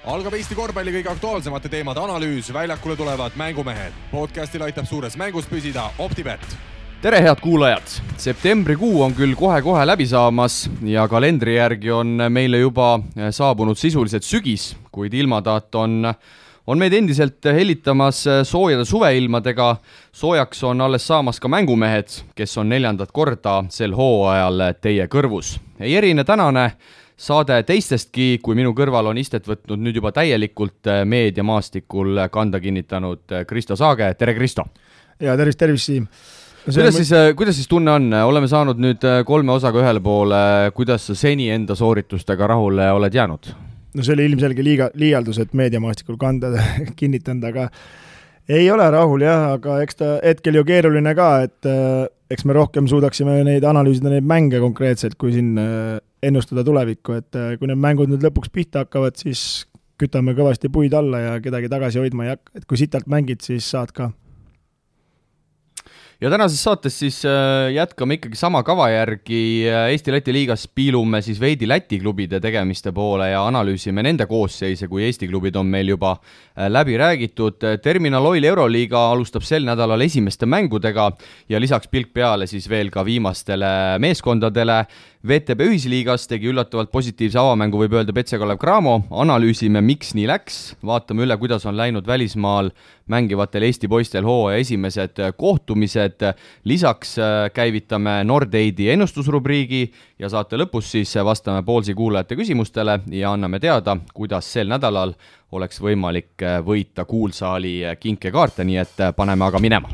Algab Eesti korvpalli kõige aktuaalsemate teemade analüüs, väljakule tulevad mängumehed. Podcastil aitab suures mängus püsida OpTibet. Tere head kuulajad! Septembrikuu on küll kohe-kohe läbi saamas ja kalendri järgi on meile juba saabunud sisuliselt sügis, kuid ilmataat on meid endiselt hellitamas soojade suveilmadega. Soojaks on alles saamas ka mängumehed, kes on 4. korda sel hooajal teie kõrvus. Ei erine tänane saade teistestki, kui minu kõrval on istet võtnud nüüd juba täielikult meediamaastikul kanda kinnitanud Kristo Saage. Tere Kristo! Ja tervist Siim! Kuidas siis tunne on? Oleme saanud nüüd 3 osaga ühele poole. Kuidas sa seni enda sooritustega rahule oled jäänud? No see oli ilmselge liialdus, et meediamaastikul kanda kinnitanud, aga ei ole rahul jah, aga eks ta hetkel ju keeruline ka, et eks me rohkem suudaksime neid analüüsida neid mänge konkreetselt, kui siin ennustada tulevikku, et kui need mängud nüüd lõpuks pihta hakkavad, siis kütame kõvasti puid alla ja kedagi tagasi hoidma ei hakka, et kui sitalt mängid, siis saad ka. Ja tänases saates siis jätkame ikkagi sama kava järgi. Eesti-Läti liigas piilume siis veidi Läti klubide tegemiste poole ja analüüsime nende koosseise, kui Eesti klubid on meil juba läbi räägitud. Terminal Oil Euroliiga alustab sel nädalal esimeste mängudega ja lisaks pilk peale siis veel ka viimastele meeskondadele. VTB ühisliigas tegi üllatavalt positiivse avamängu, võib öelda Petse Kalev Cramo. Analüüsime, miks nii läks. Vaatame üle, kuidas on läinud välismaal mängivatel Eesti poistel hooaja esimesed kohtumised. Lisaks käivitame Nordeidi ennustusrubriigi ja saate lõpus siis vastame Poolsi kuulajate küsimustele ja anname teada, kuidas sel nädalal oleks võimalik võita kuulsaali kinkekaarte, nii et paneme aga minema.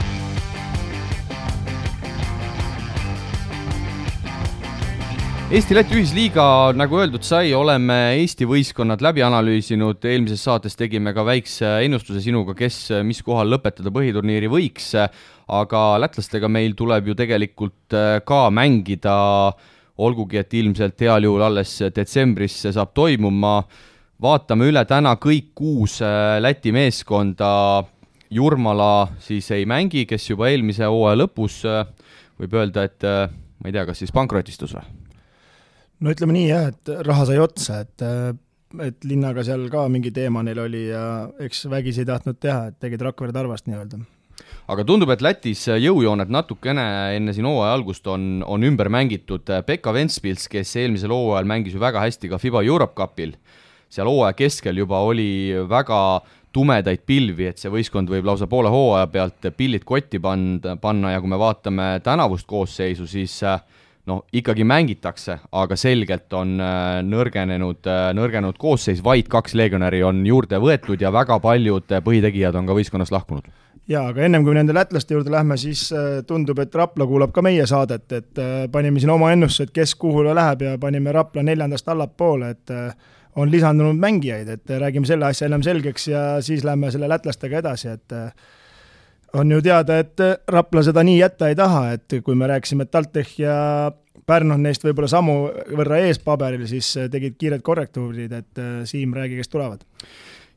Eesti-Läti ühisliiga, nagu öeldud sai, oleme Eesti võistkonnad läbi analüüsinud. Eelmises saates tegime ka väikse ennustuse sinuga, kes mis kohal lõpetada põhiturniiri võiks, aga lätlastega meil tuleb ju tegelikult ka mängida, olgugi et ilmselt heal juhul alles detsembris see saab toimuma. Vaatame üle täna kõik 6 Läti meeskonda. Jurmala siis ei mängi, kes juba eelmise hooaja lõpus võib öelda, et ma ei tea, kas siis pankrotistus või? No ütleme nii jah, et raha sai otsa, et linnaga seal ka mingi teema neil oli ja eks vägisi ei tahtnud teha, et tegid Rakvere Tarvast nii öelda. Aga tundub, et Lätis jõujooned natukene enne siin hooaja algust on ümber mängitud. Pekka Ventspils, kes eelmisel hooajal mängis ju väga hästi ka FIBA Europe Cupil, seal hooaja keskel juba oli väga tumedaid pilvi, et see võistkond võib lausa poole hooaja pealt pillid kotti panna ja kui me vaatame tänavust koosseisu, siis ikkagi mängitakse, aga selgelt on nõrgenud koosseis, vaid 2 legionäri on juurde võetud ja väga paljud põhitegijad on ka võistkonnast lahkunud. Jaa, aga ennem kui nende lätlaste juurde lähme, siis tundub, et Rapla kuulab ka meie saadet, et panime siin oma ennustused, kes kuhule läheb ja panime Rapla 4. allapoole, et on lisandunud mängijaid, et räägime selle asja enam selgeks ja siis lähme selle lätlastega edasi, et on ju teada, et Rapla seda nii jätta ei taha, et kui me rääksime, et TalTech ja Pärnu neist võib-olla samu võrra ees paberil, siis tegid kiired korrektuurid, et Siim räägi, kes tulevad.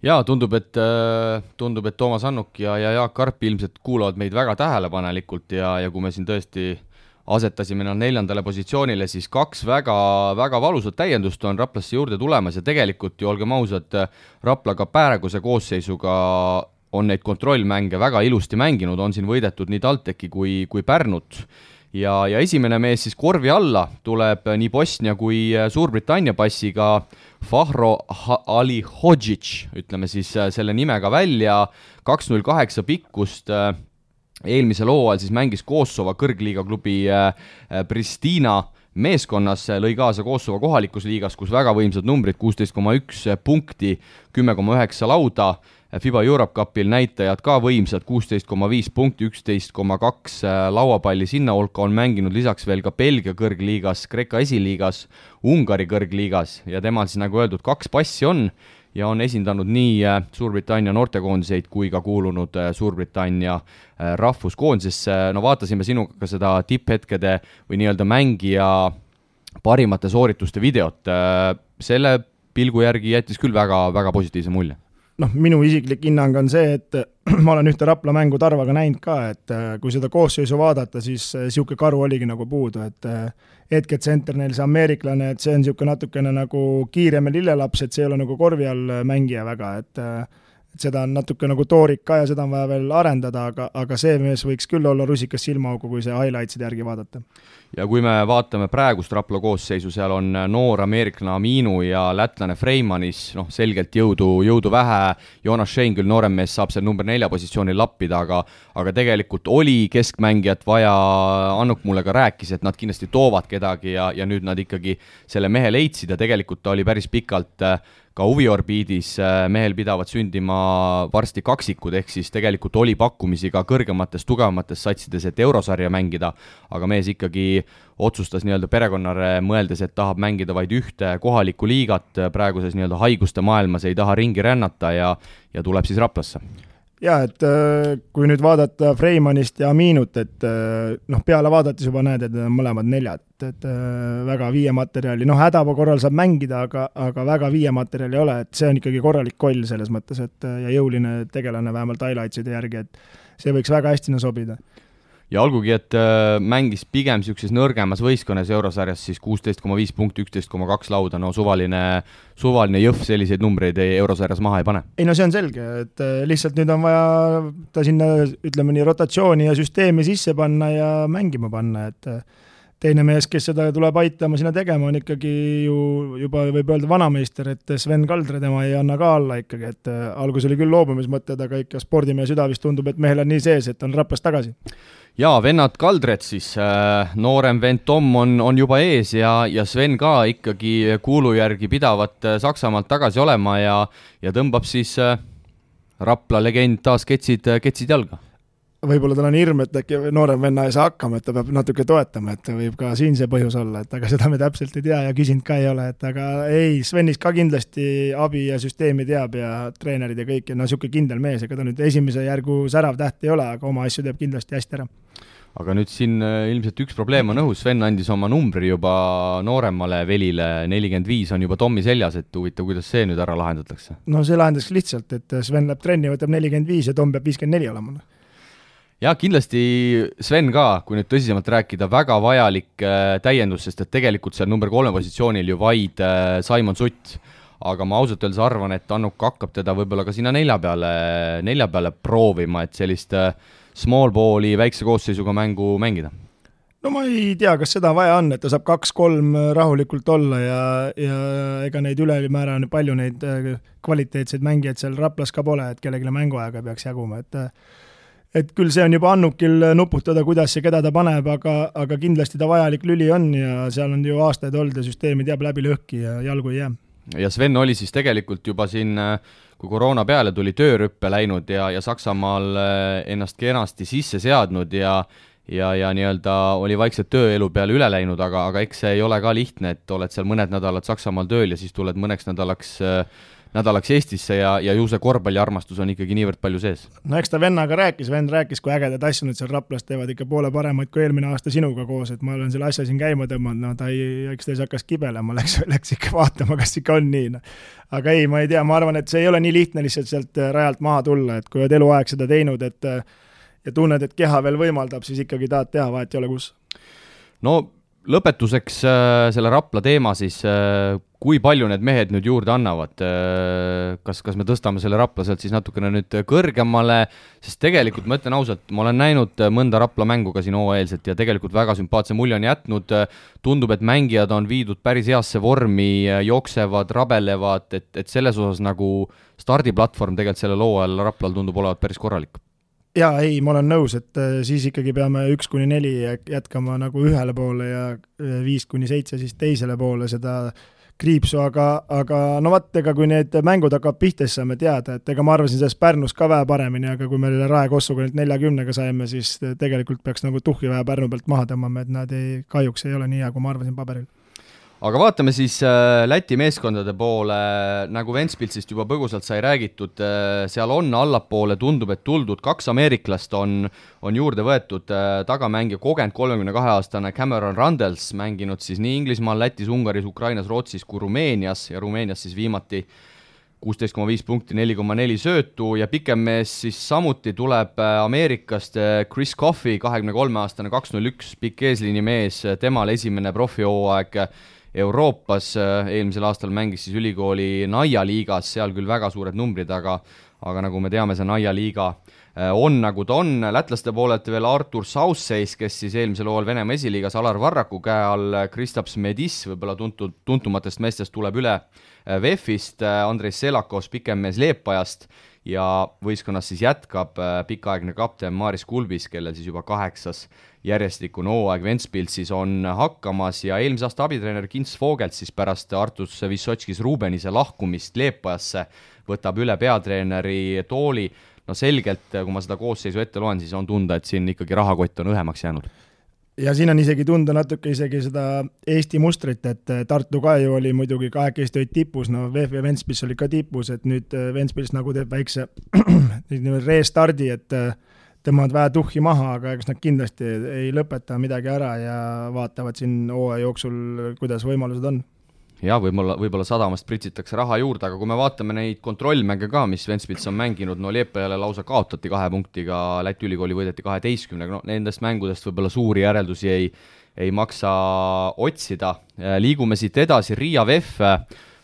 Jaa, tundub, et Toomas Annuk ja Jaak Karp ilmselt kuulavad meid väga tähelepanelikult ja kui me siin tõesti asetasime nad 4. positsioonile, siis 2 väga, väga valusat täiendust on Raplasse juurde tulemas ja tegelikult ju olgem ausad, Rapla ka praeguse koosseisuga on neid kontrollmänge väga ilusti mänginud, on siin võidetud nii TalTechi kui Pärnut. Ja esimene mees siis korvi alla tuleb nii Bosnia kui Suurbritannia passiga Fahro Ali Hodžić, ütleme siis selle nimega välja, 2.08 pikkust. Eelmisel hooajal siis mängis Kosovo kõrgliiga klubi Pristina meeskonnas, lõi kaasa Kosovo kohalikus liigas, kus väga võimsad numbrid, 16,1 punkti, 10,9 lauda. FIBA Europe Cupil näitajad ka võimsad, 16,5 punkti, 11,2 lauapalli sinna hulka, on mänginud lisaks veel ka Belgia kõrgliigas, Kreeka esiliigas, Ungari kõrgliigas ja temal siis nagu öeldud 2 passi on ja on esindanud nii Suurbritannia noortekoondiseid kui ka kuulunud Suurbritannia rahvuskoondisesse. No vaatasime sinuga seda tipphetkede või nii-öelda mängija parimate soorituste videot. Selle pilgu järgi jättis küll väga, väga positiivse mulje. minu isiklik hinnang on see, et ma olen ühte Rapla mängu Tarvaga näinud ka, et kui seda koosseisu vaadata, siis siuke karu oligi nagu puudu, et hetketsenter neil see ameeriklane, et see on siuke natukene nagu kiirem ja lillelaps, et see ei ole nagu korvi all mängija väga, et seda on natuke nagu toorik ka ja seda on vaja veel arendada, aga see mees võiks küll olla rusikas silmaaugu, kui see highlightside järgi vaadata. Ja kui me vaatame praegust Rapla koosseisu, seal on noor ameeriklane Aminu ja lätlane Freimanis, selgelt jõudu vähe, Jonas Schein küll noorem mees saab seal number 4 positsioonil lappida, aga tegelikult oli keskmängijat vaja, Annuk mulle ka rääkis, et nad kindlasti toovad kedagi ja nüüd nad ikkagi selle mehe leidsid ja tegelikult ta oli päris pikalt ka huviorbiidis, mehel pidavad sündima varsti kaksikud, ehk siis tegelikult oli pakkumisi ka kõrgemates, tugevamates satsides, et eurosarja mängida, aga mees ikkagi otsustas nii-öelda perekonnare mõeldes, et tahab mängida vaid ühte kohalikku liigat, praeguses nii-öelda haiguste maailmas ei taha ringi rännata ja tuleb siis Raplasse. Ja, et kui nüüd vaadata Freimanist ja Aminut, et peale vaadates juba näed, et mõlemad 4, et väga viiematerjali, hädaba korral saab mängida, aga väga viiematerjali ei ole, et see on ikkagi korralik koll selles mõttes, et ja jõuline tegelane vähemalt highlightside järgi, et see võiks väga hästi sobida. Ja olgugi, et mängis pigem sellises nõrgemas võistkonnas eurosarjas, siis 16,5 punkti, 11,2 lauda, suvaline jõhv selliseid numbreid eurosarjas maha ei pane. Ei, see on selge, et lihtsalt nüüd on vaja ta sinna, ütleme nii, rotatsiooni ja süsteemi sisse panna ja mängima panna, et teine mees, kes seda tuleb aitama sinna tegema, on ikkagi ju juba võib öelda vanameister, et Sven Kaldre tema ei anna ka alla ikkagi, et algus oli küll loobumismõtted, aga ikka spordimehe süda vist tundub, et mehel on nii sees, et on Raplas tagasi. Ja vennad Kaldred siis, noorem vend Tom on juba ees ja Sven ka ikkagi kuulu järgi pidavat Saksamaalt tagasi olema ja tõmbab siis Rapla legend taas ketsid jalga. Võib-olla tal on hirm, et äkki noorem venna ei saa hakkama, et ta peab natuke toetama, et võib ka siin see põhjus olla, et aga seda me täpselt ei tea ja küsinud ka ei ole, et aga ei, Svenis ka kindlasti abi ja süsteemi teab ja treenerid ja kõik, ja siuke kindel mees, ega ta nüüd esimese järgu särav täht ei ole, aga oma asju teeb kindlasti hästi ära. Aga nüüd siin ilmselt üks probleem on õhus, Sven andis oma numbri juba nooremale Velile, 45 on juba Tommi seljas, et huvitav, kuidas see nüüd ära lahendatakse? See lahendaks lihtsalt, et Sven läheb trenni, võtab 45 ja Tom peab 54 olema. Ja kindlasti Sven ka, kui nüüd tõsisemalt rääkida, väga vajalik täiendus, sest et tegelikult seal number 3 positsioonil ju vaid Simon Sutt, aga ma ausalt öeldes arvan, et Annuk hakkab teda võib-olla ka sinna 4 peale proovima, et sellist small balli väikse koosseisuga mängu mängida. Ma ei tea, kas seda vaja on, et ta saab 2-3 rahulikult olla ja ega neid ülemäära on palju neid kvaliteetseid mängijaid seal Raplas ka pole, et kellegile mänguaega peaks jaguma, et küll see on juba Annukil nuputada, kuidas ja keda ta paneb, aga kindlasti ta vajalik lüli on ja seal on ju aastaid olnud ja süsteemi teab läbi lõhki ja jalgu ei jää. Ja Sven oli siis tegelikult juba siin, kui koroona peale tuli töörüppe läinud ja Saksamaal ennast kenasti sisse seadnud ja nii-öelda oli vaikselt tööelu peale üle läinud, aga eks see ei ole ka lihtne, et oled seal mõned nädalad Saksamaal tööl ja siis tuled mõneks nädalaks Eestisse ja ju see korvpalliarmastus on ikkagi niivõrd palju sees. Eks ta vennaga vend rääkis, kui ägedad asju nüüd seal Raplas teevad ikka poole paremaid kui eelmine aasta sinuga koos, et ma olen selle asja siin käima tõmmanud, eks ta hakkas kibelema, läks ikka vaatama, kas ikka on nii. Aga ei, ma ei tea, ma arvan, et see ei ole nii lihtne lihtsalt sealt rajalt maha tulla, et kui oled eluaeg seda teinud, ja tunned, et keha veel võimaldab, siis ikkagi tahad teha, vahet ei ole kus. Lõpetuseks selle Rapla teema siis, kui palju need mehed nüüd juurde annavad, kas me tõstame selle Rapla sealt siis natukene nüüd kõrgemale, sest tegelikult ma ütlen ausalt, ma olen näinud mõnda Rapla mängu ka siin hooajalselt ja tegelikult väga sümpaatse mulje on jätnud, tundub, et mängijad on viidud päris heasse vormi, jooksevad, rabelevad, et selles osas nagu stardiplatvorm tegelikult selle loo ajal Raplal tundub olevat päris korralik. Jaa, ei, ma olen nõus, et siis ikkagi peame 1-4 jätkama nagu ühele poole ja 5-7 siis teisele poole seda kriipsu, aga ega kui need mängud hakkab pihta, siis saame teada, et ega ma arvasin sellest Pärnus ka vähe paremini, aga kui me Rae Kossuga 40-ga saime, siis tegelikult peaks nagu tuhhi vähe Pärnu pealt maha tõmbama, et nad kahjuks ei ole nii hea, kui ma arvasin paberil. Aga vaatame siis Läti meeskondade poole, nagu Ventspilsist juba põgusalt sai räägitud, seal on allapoole, tundub, et tuldud 2 ameeriklast on juurde võetud, tagamängija kogenud 32-aastane Cameron Randels, mänginud siis nii Inglismaal, Lätis, Ungaris, Ukrainas, Rootsis kui Rumeenias ja Rumeenias siis viimati 16,5 punkti, 4,4 söötu ja pikem mees siis samuti tuleb Ameerikast Chris Coffey, 23-aastane 201 pikk eesliini mees, temal esimene profihooaeg Euroopas, eelmisel aastal mängis siis ülikooli Naia liigas, seal küll väga suured numbrid, aga nagu me teame, see Naia liiga on nagu ta on. Lätlaste poolelt veel Artur Sausseis, kes siis eelmisel hooajal Venemaa esiliigas Alar Varraku käe all, Kristaps Medis, võib-olla tuntumatest meestest tuleb üle VEF-ist, Andrei Selakos, pikem mees Leepajast ja võistkonnas siis jätkab pikaaegne kapten Maris Kulbis, kellel siis juba 8. järjestikune hooaeg Ventspilsis on hakkamas ja eelmise aasta abitreener Kins Vogelt siis pärast Artus Vissotskis Rubenise lahkumist Leepajasse võtab üle peatreeneri tooli. No selgelt, kui ma seda koosseisu ette loen, siis on tunda, et siin ikkagi rahakott on õhemaks jäänud. Ja siin on isegi tunda natuke isegi seda Eesti mustrit, et Tartu ka ju oli muidugi kahekesti olid tipus, no VEF ja Ventspils oli ka tipus, et nüüd Ventspils nagu teeb väikse restardi, et tõmbavad vähe tuhhi maha, aga eks nad kindlasti ei lõpeta midagi ära ja vaatavad siin hooaja jooksul, kuidas võimalused on. Ja võib-olla sadamast pritsitakse raha juurde, aga kui me vaatame neid kontrollmänge ka, mis Ventspils on mänginud, no Liepajale lausa kaotati 2 punktiga, Läti ülikooli võideti 12, no nendest mängudest võib-olla suuri järeldusi ei maksa otsida. Liigume siit edasi, Riia VEF.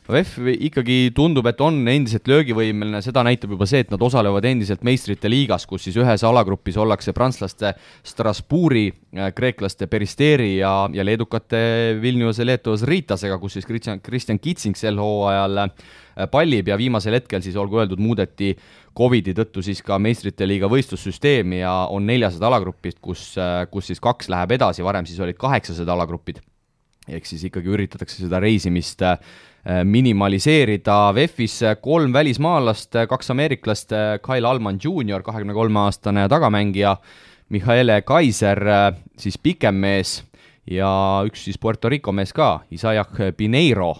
VEF ikkagi tundub, et on endiselt löögivõimeline, seda näitab juba see, et nad osalevad endiselt meistrite liigas, kus siis ühes alagrupis ollakse prantslaste Strasbourgi, kreeklaste Peristeri ja leedukate Vilniuse Leetovas Riitasega, kus siis Kristjan Kitsing sel hooajal pallib ja viimasel hetkel siis olgu öeldud muudeti Covidi tõttu siis ka meistrite liiga võistlussüsteemi ja on 400 alagrupid, kus siis 2 läheb edasi, varem siis olid 800 alagrupid. Ehk siis ikkagi üritatakse seda reisimist minimaliseerida. VEF-is 3 välismaalast, 2 ameeriklast, Kyle Allman Jr., 23-aastane tagamängija, Michaele Kaiser, siis pikem mees ja üks siis Puerto Rico mees ka, Isaiah Pineiro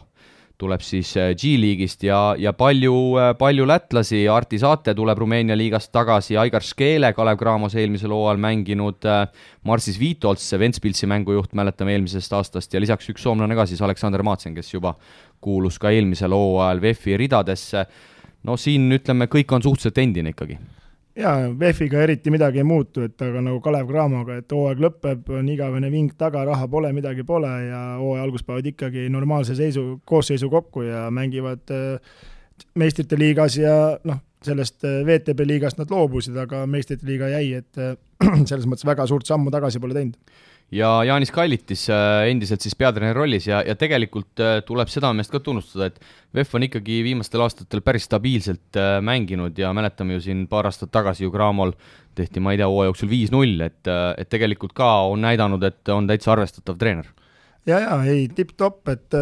tuleb siis G-liigist ja palju lätlasi, Arti Saate tuleb Rumeenia liigast tagasi, Aigar Škeele, Kalev Cramos eelmisel hooajal mänginud, Marsis Viitolts, Ventspilsi mängujuht, mäletame eelmisest aastast ja lisaks üks soomlane ka siis Aleksander Maatsen, kes juba kuulus ka eelmisel hooajal VEF-i ridadesse. No siin ütleme, kõik on suhteliselt endine ikkagi. Jaa, VEF-iga eriti midagi ei muutu, et aga nagu Kalev Cramoga, et hooaeg lõpeb, on igavene ving taga, raha pole, midagi pole ja hooaja algus päevad ikkagi normaalse koosseisu kokku ja mängivad meistrite liigas ja sellest VTB liigast nad loobusid, aga meistrite liiga jäi, et selles mõttes väga suurt sammu tagasi pole teinud. Ja Jaanis Kallitis endiselt siis peatreeneri rollis ja tegelikult tuleb seda meest ka tunnustada, et VEF on ikkagi viimastel aastatel päris stabiilselt mänginud ja mäletame ju siin paar aastat tagasi ju Cramol tehti, ma ei tea, hooaja jooksul 5-0, et tegelikult ka on näidanud, et on täitsa arvestatav treener. Ja, ei, tipp-topp, et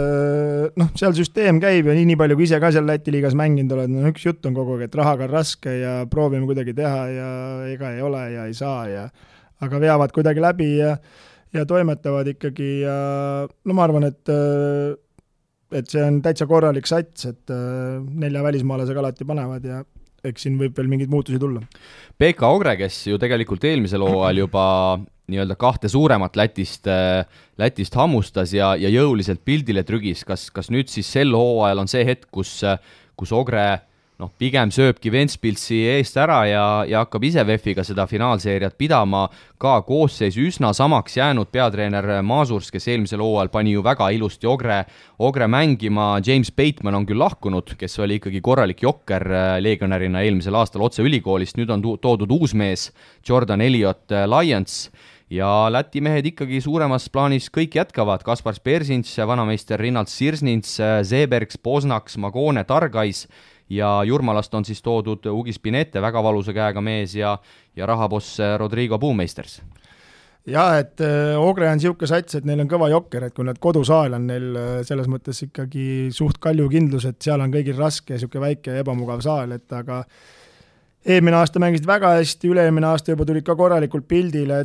seal süsteem käib ja nii palju, kui ise ka seal Läti liigas mänginud oled, üks jutt on kogu aeg, et rahaga on raske ja proovime kuidagi teha ja ega ei ole ja ei saa aga veavad kuidagi läbi ja toimetavad ikkagi ja ma arvan, et see on täitsa korralik sats, et 4 välismaalasega alati panevad ja eks siin võib veel mingeid muutusi tulla. Pekka Ogre, kes ju tegelikult eelmisel hooajal juba nii-öelda 2 suuremat Lätist hammustas ja jõuliselt pildile trügis, kas nüüd siis sel hooajal on see hetk, kus Ogre pigem sööbki Ventspilsi eest ära ja hakkab ise VEF-iga seda finaalseeriat pidama, ka koosseis üsna samaks jäänud peatreener Maasurs, kes eelmisel hooajal pani ju väga ilusti Ogre mängima, James Bateman on küll lahkunud, kes oli ikkagi korralik jokker legionärina eelmisel aastal otse ülikoolist, nüüd on toodud uus mees, Jordan Elliot Lions ja Läti mehed ikkagi suuremas plaanis kõik jätkavad, Kaspar Spersins, vanameister Rinnald Sirsnins, Zebergs, Posnaks, Magone, Targais ja Jurmalast on siis toodud Ugi Spinette, väga valusa käega mees ja rahaboss Rodrigo Puumeisters. Jaa, et Ogre on siuke sats, et neil on kõva jokker, et kui nad kodusaal on neil selles mõttes ikkagi suht kalju kindlus, et seal on kõigil raske, siuke väike ebamugav saal, et aga eelmine aasta mängisid väga hästi, üle-eelmine aasta juba tulid ka korralikult pildile,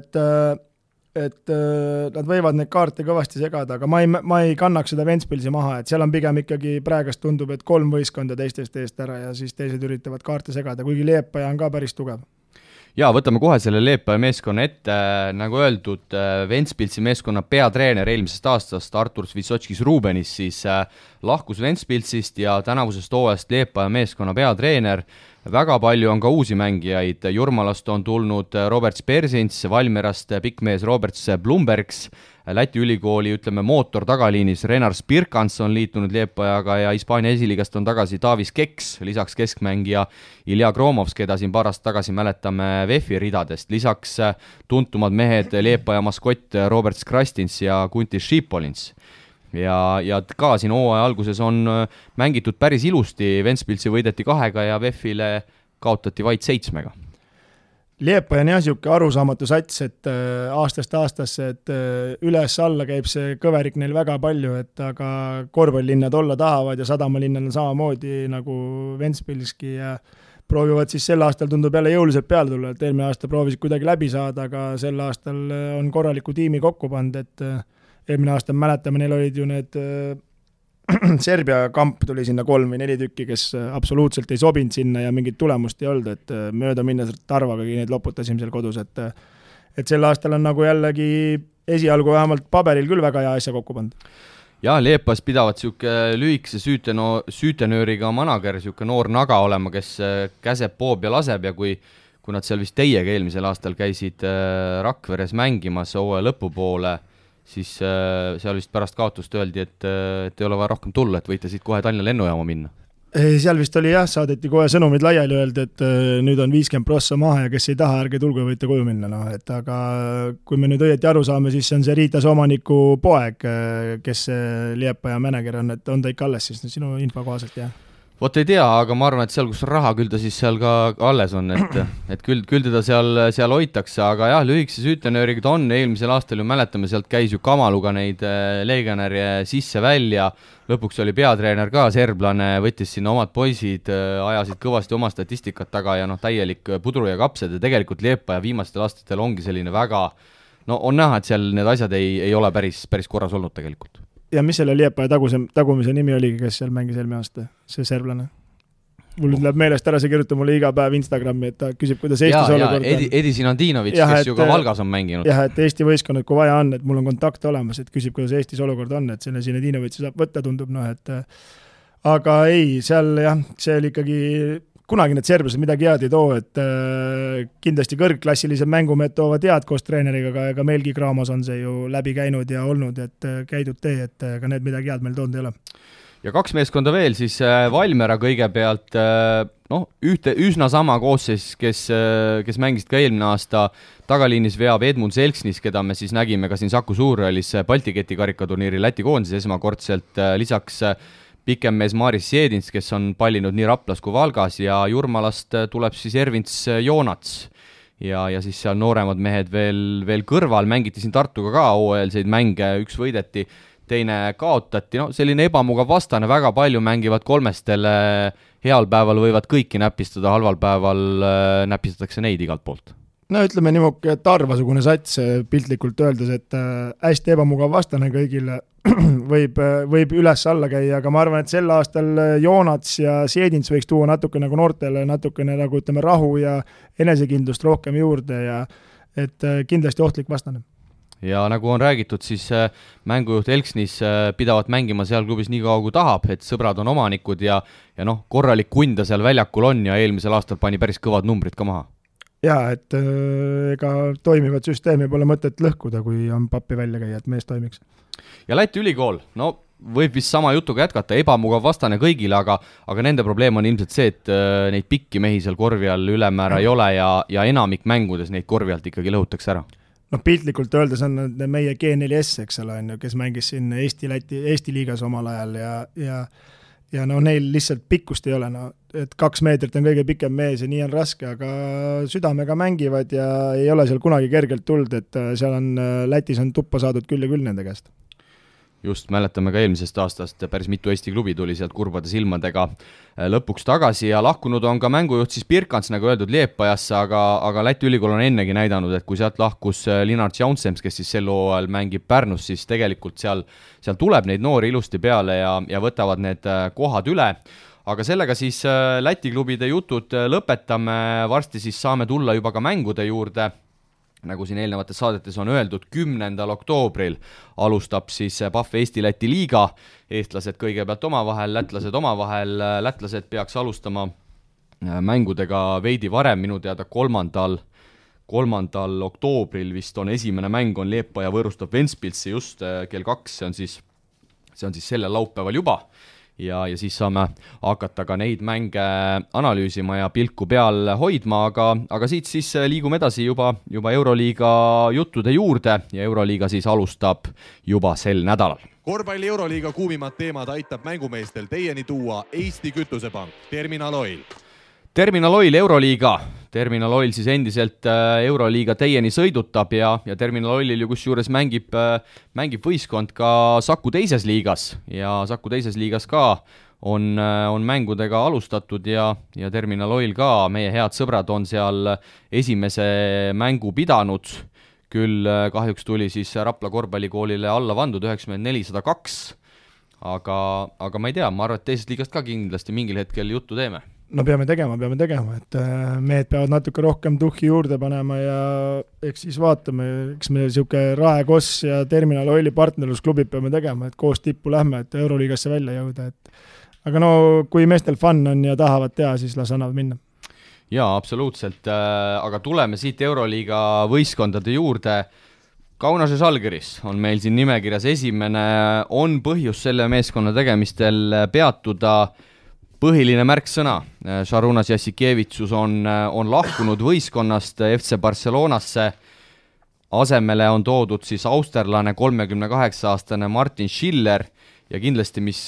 et nad võivad neid kaarte kõvasti segada, aga ma ei kannaks seda Ventspilsi maha, et seal on pigem ikkagi praegast tundub, et 3 võistkonda teistest eest ära ja siis teised üritavad kaarte segada, kuigi Liepaja on ka päris tugev. Jaa, võtame kohe selle Liepaja meeskonna ette, nagu öeldud, Ventspilsi meeskonna peatreener eelmisest aastast Artur Svitsotskis-Rubenis siis lahkus Ventspilsist ja tänavusest hooajast Liepaja meeskonna peatreener. Väga palju on ka uusi mängijaid, Jurmalast on tulnud Roberts Persins, Valmierast pikkmees Roberts Blumbergs, Läti ülikooli, ütleme, mootor tagaliinis Renar Spirkans on liitunud Liepajaga ja Hispaania esiliigast on tagasi Davis Keks, lisaks keskmängija Ilja Kromovs, keda siin paar aastat tagasi mäletame VEF-i ridadest, lisaks tuntumad mehed Liepaja maskott Robert Skrastins ja Kuntis Šipolins. Ja ka siin hooaja alguses on mängitud päris ilusti, Ventspilsi võideti 2 ja VEF-ile kaotati vaid 7. Liepaja on jah siuke arusaamatu sats, et aastast aastasse, et üles-alla käib see kõverik neil väga palju, et aga korvpallilinnad olla tahavad ja sadamalinnad on samamoodi nagu Ventspilski ja proovivad siis sel aastal tundub jälle jõuliselt peale tulla, et eelmine aasta proovisid kuidagi läbi saada, aga sel aastal on korraliku tiimi kokku pand, et eelmine aasta mäletame, neil olid ju need Serbia kamp tuli sinna 3 või 4 tükki, kes absoluutselt ei sobinud sinna ja mingit tulemust ei olnud, et mööda minnes Tarvagagi neid loputasime seal kodus, et sel aastal on nagu jällegi esialgu vähemalt paberil küll väga hea asja kokku pandud. Ja Liepas pidavad siuke lühikese süütenööriga manager, siuke noor naga olema, kes käseb, poob ja laseb ja kui nad seal vist teiega eelmisel aastal käisid Rakveres mängimas hooaja lõpupoole, siis seal vist pärast kaotust öeldi, et ei ole vaja rohkem tulla, et võite siit kohe Tallinna lennujaama minna. Seal vist oli jah, saadeti kohe sõnumid laiali öeldi, et nüüd on 50% maha ja kes ei taha, ärge tulge, võite koju minna. No, et aga kui me nüüd õieti aru saame, siis see on see Riitas omaniku poeg, kes Liepaja manager on, et on ta ikka alles siis sinu info kohaselt, jah? Vot ei tea, aga ma arvan, et seal, kus on raha, küll ta siis seal ka alles on, et küll teda seal hoitakse, aga jah, lühikese süütenööriga ta on, eelmisel aastal ju mäletame, sealt käis ju Kamaluga neid legionäre sisse-välja, lõpuks oli peatreener ka serblane, võttis sinna omad poisid, ajasid kõvasti oma statistikat taga ja täielik pudru ja kapsed ja tegelikult Liepaja viimastel aastatel ongi selline väga, on näha, et seal need asjad ei ole päris korras olnud tegelikult. Ja mis selle Liepaja tagumise nimi oligi, kes seal mängis eelmine aasta, see serblane? Mul nüüd läheb meelest ära, see kirjutab mulle iga päev Instagrami, et ta küsib, kuidas Eestis olukord on. Edi Sinandinovitš, kes ju ka Valgas on mänginud. Jah, et Eesti võistkonnad, kui vaja on, et mul on kontakt olemas, et küsib, kuidas Eestis olukord on, et selle Sinandinovitši saab võtta, tundub, et aga ei, seal jah, see oli ikkagi kunagi need serblased midagi head ei too, et kindlasti kõrgklassilised mängumehed toovad head koos treeneriga, aga meilgi Kraamos on see ju läbi käinud ja olnud, et käidud tee, et ka need midagi head meil toonud ei ole. Ja 2 meeskonda veel, siis Valmiera kõigepealt, ühte üsna sama koosseis, kes mängisid ka eelmine aasta, tagaliinis veab Edmund Selksnis, keda me siis nägime ka siin Saku Suurhallis Balti keti karikaturniiri Läti koondises esmakordselt, lisaks pikemmees Maris Siedins, kes on pallinud nii Raplas kui Valgas ja Jurmalast tuleb siis Ervints Joonats ja siis seal nooremad mehed veel kõrval, mängiti siin Tartuga ka hooajalseid mänge, üks võideti, teine kaotati, selline ebamugav vastane, väga palju mängivad kolmestele, heal päeval võivad kõiki näpistada, halval päeval näpistatakse neid igalt poolt. No ütleme niimoodi, et arvasugune sats piltlikult öeldes, et hästi ebamugav vastane kõigile võib üles-alla käia, aga ma arvan, et sel aastal Joonats ja Siedins võiks tuua natuke nagu noortele, natukene nagu ütleme rahu ja enesekindlust rohkem juurde ja et kindlasti ohtlik vastane. Ja nagu on räägitud, siis mängujuht Elksnis pidavat mängima seal klubis nii kaua kui tahab, et sõbrad on omanikud ja korralik kunda seal väljakul on ja eelmisel aastal pani päris kõvad numbrid ka maha. Jaa, et ega toimivat süsteemi pole mõtet lõhkuda, kui on pappi välja käia, et mees toimiks. Ja Läti ülikool, võib vist sama jutuga jätkata, ebamugav vastane kõigile, aga nende probleem on ilmselt see, et neid pikki mehi seal korvi all ülemäära ei ole ja enamik mängudes neid korvi alt ikkagi lõhutakse ära. Piltlikult öeldes on meie G4S, eks ole, kes mängis siin Eesti liigas omal ajal ja neil lihtsalt pikkust ei ole, et 2 meetrit on kõige pikem mees ja nii on raske, aga südamega mängivad ja ei ole seal kunagi kergelt tuld, et seal on Lätis on tuppa saadud küll ja küll nende käest. Just, mäletame ka eelmisest aastast, päris mitu Eesti klubi tuli sealt kurbade silmadega lõpuks tagasi ja lahkunud on ka mängujuht siis Birkants, nagu öeldud, Liepajasse, aga Läti ülikool on ennegi näidanud, et kui sealt lahkus Linnart Jaunsems, kes siis sel hooajal mängib Pärnus, siis tegelikult seal tuleb neid noori ilusti peale ja võtavad need kohad üle. Aga sellega siis Läti klubide jutud lõpetame, varsti siis saame tulla juba ka mängude juurde. Nagu siin eelnevates saadetes on öeldud, 10. oktoobril alustab siis PAF Eesti-Läti liiga, eestlased kõigepealt omavahel, lätlased peaks alustama mängudega veidi varem, minu teada 3. oktoobril vist on esimene mäng, on Liepaja võõrustab Ventspilsi just kell 2, see on siis sellel laupäeval juba. Ja siis saame hakata ka neid mänge analüüsima ja pilku peal hoidma, aga siit siis liigume edasi juba Euroliiga juttude juurde ja Euroliiga siis alustab juba sel nädalal. Korvpalli Euroliiga kuumimad teemad aitab mängumeestel teieni tuua Eesti Kütusepank, Terminal Oil. Terminal Oil Euroliiga. Terminal Oil siis endiselt Euroliiga teieni sõidutab ja Terminal Oilil ju kusjuures mängib võistkond ka Saku teises liigas ja Saku teises liigas ka on mängudega alustatud ja Terminal Oil ka, meie head sõbrad on seal esimese mängu pidanud, küll kahjuks tuli siis Rapla korvpallikoolile alla vandud 94-102, aga ma ei tea, ma arvan, et teisest liigast ka kindlasti mingil hetkel juttu teeme. No peame tegema, et mehed peavad natuke rohkem tuhhi juurde panema ja eks siis vaatame, eks me siuke Rae Koss ja Terminal Oili partnerlusklubid peame tegema, et koos tippu lähme, et Euroliigasse välja jõuda, aga no kui meestel fun on ja tahavad teha, siis las annavad minna. Jaa, absoluutselt, aga tuleme siit Euroliiga võistkondade juurde. Kaunase Žalgiris on meil siin nimekirjas esimene, on põhjus selle meeskonna tegemistel peatuda. Põhiline märksõna, Šarunas Jassikevitsus on lahkunud võistkonnast FC Barcelonasse, asemele on toodud siis austerlane 38-aastane Martin Schiller ja kindlasti, mis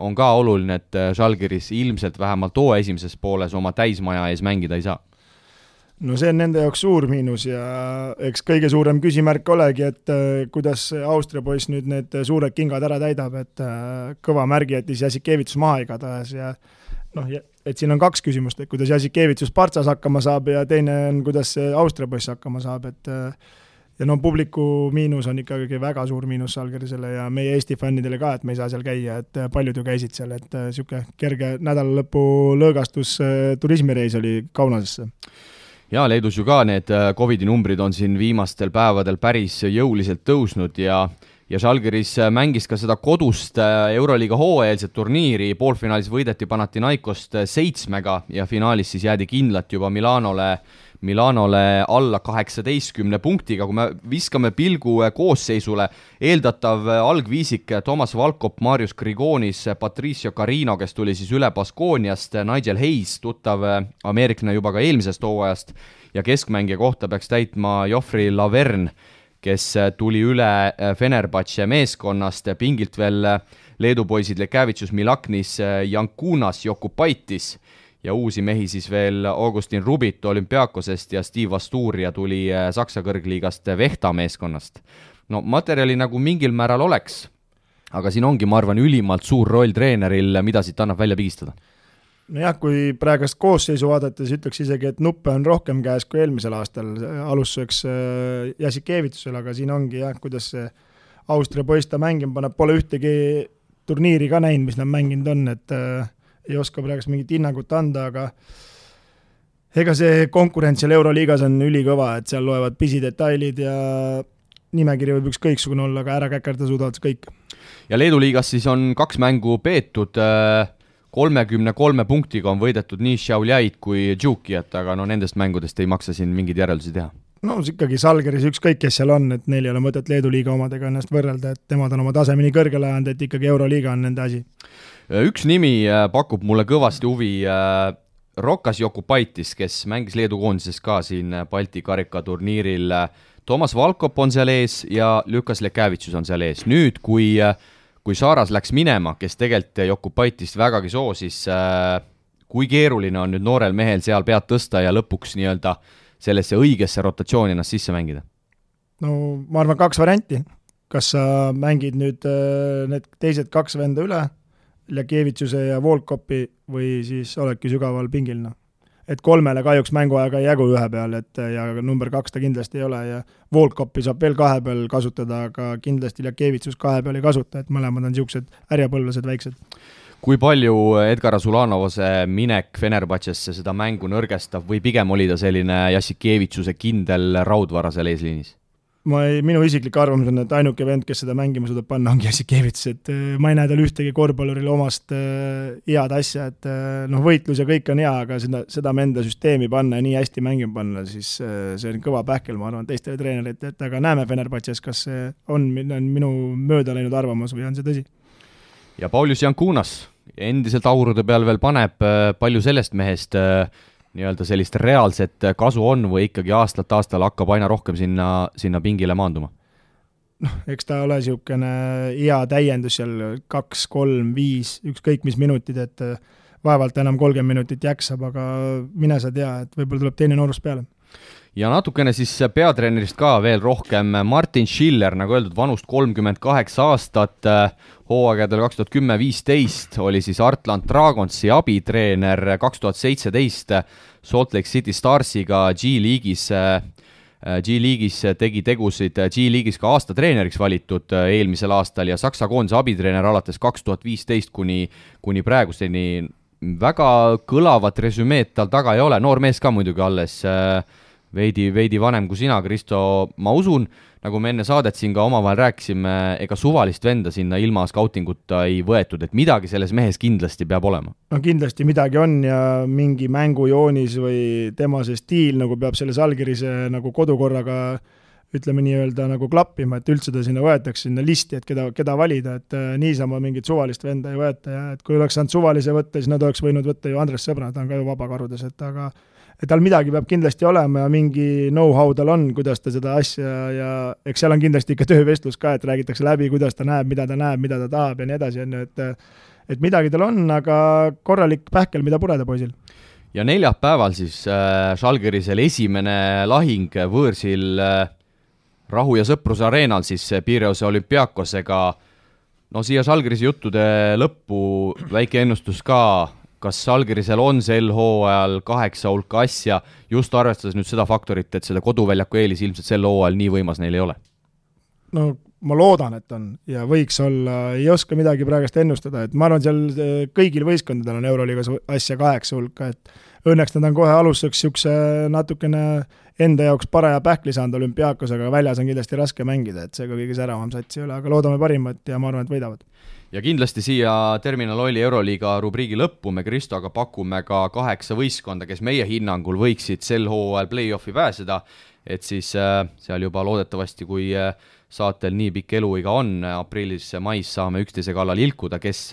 on ka oluline, et Žalgiris ilmselt vähemalt esimeses pooles oma täismaja ees mängida ei saa. No see on nende jaoks suur miinus ja eks kõige suurem küsimärk olegi, et kuidas Austria poiss nüüd need suured kingad ära täidab, et kõva märgi jättis Jassikevitsus maha igatahes ja et siin on kaks küsimust, et kuidas Jassikevitsus Partsas hakkama saab ja teine on, kuidas see Austria poiss hakkama saab, et ja publiku miinus on ikkagi väga suur miinus Žalgirisele ja meie Eesti fännidele ka, et me ei saa seal käia, et paljud ju käisid seal, et siuke kerge nädalalõpu lõõgastus turismireis oli Kaunasesse. Ja Leedus ju ka need COVID-i numbrid on siin viimastel päevadel päris jõuliselt tõusnud ja Žalgiris mängis ka seda kodust Euroliiga hooajalset turniiri, poolfinaalis võideti Panathinaikost 7 ja finaalis siis jäädi kindlalt juba Milanole alla 18 punktiga, kui me viskame pilgu koosseisule, eeldatav algviisik Toomas Valkop, Marius Grigonis, Patricio Carino, kes tuli siis üle Baskooniast, Nigel Hayes, tuttav ameeriklane juba ka eelmisest hooajast ja keskmängija kohta peaks täitma Joffrey Laverne, kes tuli üle Fenerbahce meeskonnast, pingilt veel Leedu poisid Lekavitsus, Milaknis, Jankunas, Jokupaitis ja uusi mehi siis veel Augustin Rubit Olümpiakosest ja Steve Asturia tuli Saksa kõrgliigast Vehta meeskonnast. No materjali nagu mingil määral oleks, aga siin ongi, ma arvan, ülimalt suur roll treeneril, mida siit annab välja pigistada. Nojah, kui praegust koosseisu vaadates ütleks isegi, et nuppe on rohkem käes kui eelmisel aastal alustuseks Jassikevitsusel, aga siin ongi jah, kuidas see Austria poiss ta mängima paneb, pole ühtegi turniiri ka näinud, mis nad mänginud on, et ei oska praegust mingit hinnangut anda, aga ega see konkurents seal Euroliigas on ülikõva, et seal loevad pisidetailid ja nimekiri võib ükskõiksugune olla, aga ära käkerda suudavad kõik. Ja Leedu liigas siis on 2 mängu peetud, 33 punktiga on võidetud nii Šiauliaid kui Džukijat, aga nendest mängudest ei maksa siin mingeid järeldusi teha. No ikkagi Žalgiris ükskõik, kes seal on, et neil ei ole mõtet Leedu liiga omadega ennast võrrelda, et temad on oma tasemeni kõrgele ajanud, et ikkagi Euroliiga on nende asi. Üks nimi pakub mulle kõvasti huvi, Rokas Jokupaitis, kes mängis Leedu koondises ka siin Balti karikaturniiril. Toomas Valkop on seal ees ja Lukas Lekavitsus on seal ees. Nüüd, kui Saaras läks minema, kes tegelikult Jokupaitist vägagi soosis, kui keeruline on nüüd noorel mehel seal pead tõsta ja lõpuks nii-öelda sellesse õigesse rotatsiooni ennast sisse mängida? No ma arvan 2 varianti. kas sa mängid nüüd need teised 2 venda üle, Ljakevitsuse ja Volkopi, või siis oledki sügaval pingil, noh. Et 3 kahjuks mänguaega ei jagu 1 peal, et ja number 2 ta kindlasti ei ole ja Volkopi saab veel 2 peal kasutada, aga kindlasti Ljakevitsus 2 peal ei kasuta, et mõlemad on niisugused härjapõlvlased väiksed. Kui palju Edgar Azulanovase minek Fenerbahcesse seda mängu nõrgestab või pigem oli ta selline Jassikevitsuse kindel raudvara seal eesliinis? Minu isiklik arvamus on, et ainuke vend, kes seda mängima suudab panna, ongi Jassikevits, et ma ei näe tal ühtegi korvpallurile omast head asja, et võitlus ja kõik on hea, aga seda enda süsteemi panna ja nii hästi mängima panna, siis see on kõva pähkel, ma arvan, teistele treenerite, et aga näeme Fenerbahces, kas see on minu mööda läinud arvamus või on see tõsi. Ja Paulius Jankunas endiselt aurude peal veel paneb, palju sellest mehest nii-öelda sellist reaalset kasu on või ikkagi aastalt aastal hakkab aina rohkem sinna pingile maanduma? Eks ta ole niisugune hea täiendus seal 2, 3, 5, ükskõik mis minutid, et vaevalt enam 30 minutit jaksab, aga mine sa tea, et võib-olla tuleb teine noorus peale. Ja natukene siis peatreenerist ka veel rohkem. Martin Schiller, nagu öeldud, vanust 38 aastat, hooaegadel 2010-15 oli siis Artland Dragonsi abitreener, 2017 Salt Lake City Starsiga G-liigis tegi tegusid, G-liigis ka aasta treeneriks valitud eelmisel aastal ja Saksa koondise abitreener alates 2015 kuni praeguseni. Väga kõlavat resümeed tal taga ei ole, noor mees ka muidugi alles, veidi vanem kui sina, Kristo. Ma usun, nagu me enne saadet siin ka omavahel rääkisime, ega suvalist venda sinna ilma skautinguta ei võetud, et midagi selles mehes kindlasti peab olema. No kindlasti midagi on ja mingi mängujoonis või tema see stiil nagu peab selles allkirjase nagu kodukorraga ütleme nii-öelda nagu klappima, et üldse ta sinna võetakse sinna listi, et keda valida, et niisama mingit suvalist venda ei võeta ja et kui oleks saanud suvalise võtta, siis nad oleks võinud võtta ju Andres Sõbra, ta on ka ju vabakarudes, et tal midagi peab kindlasti olema ja mingi know-how tal on, kuidas ta seda asja ja eks seal on kindlasti ikka töövestlus ka, et räägitakse läbi, kuidas ta näeb, mida ta tahab ja nii edasi, et midagi tal on, aga korralik pähkel, mida pureda poisil. Ja neljapäeval siis Žalgirisel esimene lahing võõrsil Rahu ja Sõpruse areenal siis Pireuse Olümpiakosega. No siia Žalgirise juttude lõppu väike ennustus ka, kas Žalgirisel on sel hooajal 8 hulka asja, just arvestades nüüd seda faktorit, et seda koduväljaku eelis ilmselt sel hooajal nii võimas neil ei ole? No ma loodan, et on ja võiks olla, ei oska midagi praegust ennustada, et ma arvan, seal kõigil võistkondadel on Euroliigas asja 8 hulka, et õnneks nad on kohe alustuseks niisuguse natukene enda jaoks paraja pähkli saanud Olümpiakos, aga väljas on kindlasti raske mängida, et see ka kõige säravam satsi üle, aga loodame parimat ja ma arvan, et võidavad. Ja kindlasti siia Terminal Oili Euroliiga rubriigi lõppu me Kristoga pakume ka 8 võistkonda, kes meie hinnangul võiksid sel hooajal play-offi pääseda, et siis seal juba loodetavasti, kui saatel nii pikk eluiga on, aprillis-mais saame üksteise kallal ilkuda, kes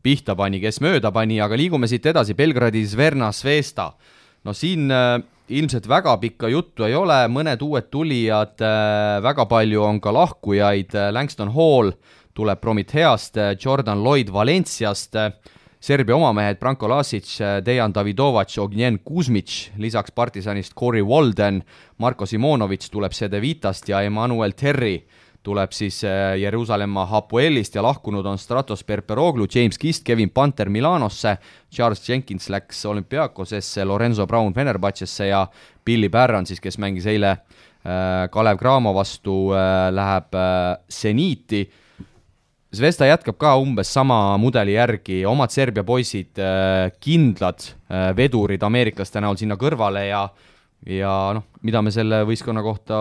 pihta pani, kes mööda pani, aga liigume siit edasi, Belgradi Zverna Zvezda. No siin ilmselt väga pikka juttu ei ole, mõned uued tulijad, väga palju on ka lahkujaid, Langston Hall tuleb Prometheast, Jordan Lloyd Valenciast, Serbia omamehed Branko Lasic, Dejan Davidovac, Ognjen Kuzmic, lisaks Partisanist Corey Walden, Marko Simonovic tuleb Cedevitast ja Emmanuel Terry tuleb siis Jeruusalemma Hapoelist ja lahkunud on Stratos Perperoglu, James Kist, Kevin Panter Milanosse, Charles Jenkins läks Olümpiakosesse, Lorenzo Brown Fenerbahcesse ja Billy Barron siis, kes mängis eile Kalev Cramo vastu, läheb Zeniti. Zvezda jätkab ka umbes sama mudeli järgi, omad Serbia poisid, kindlad vedurid ameeriklaste näol sinna kõrvale ja noh, mida me selle võistkonna kohta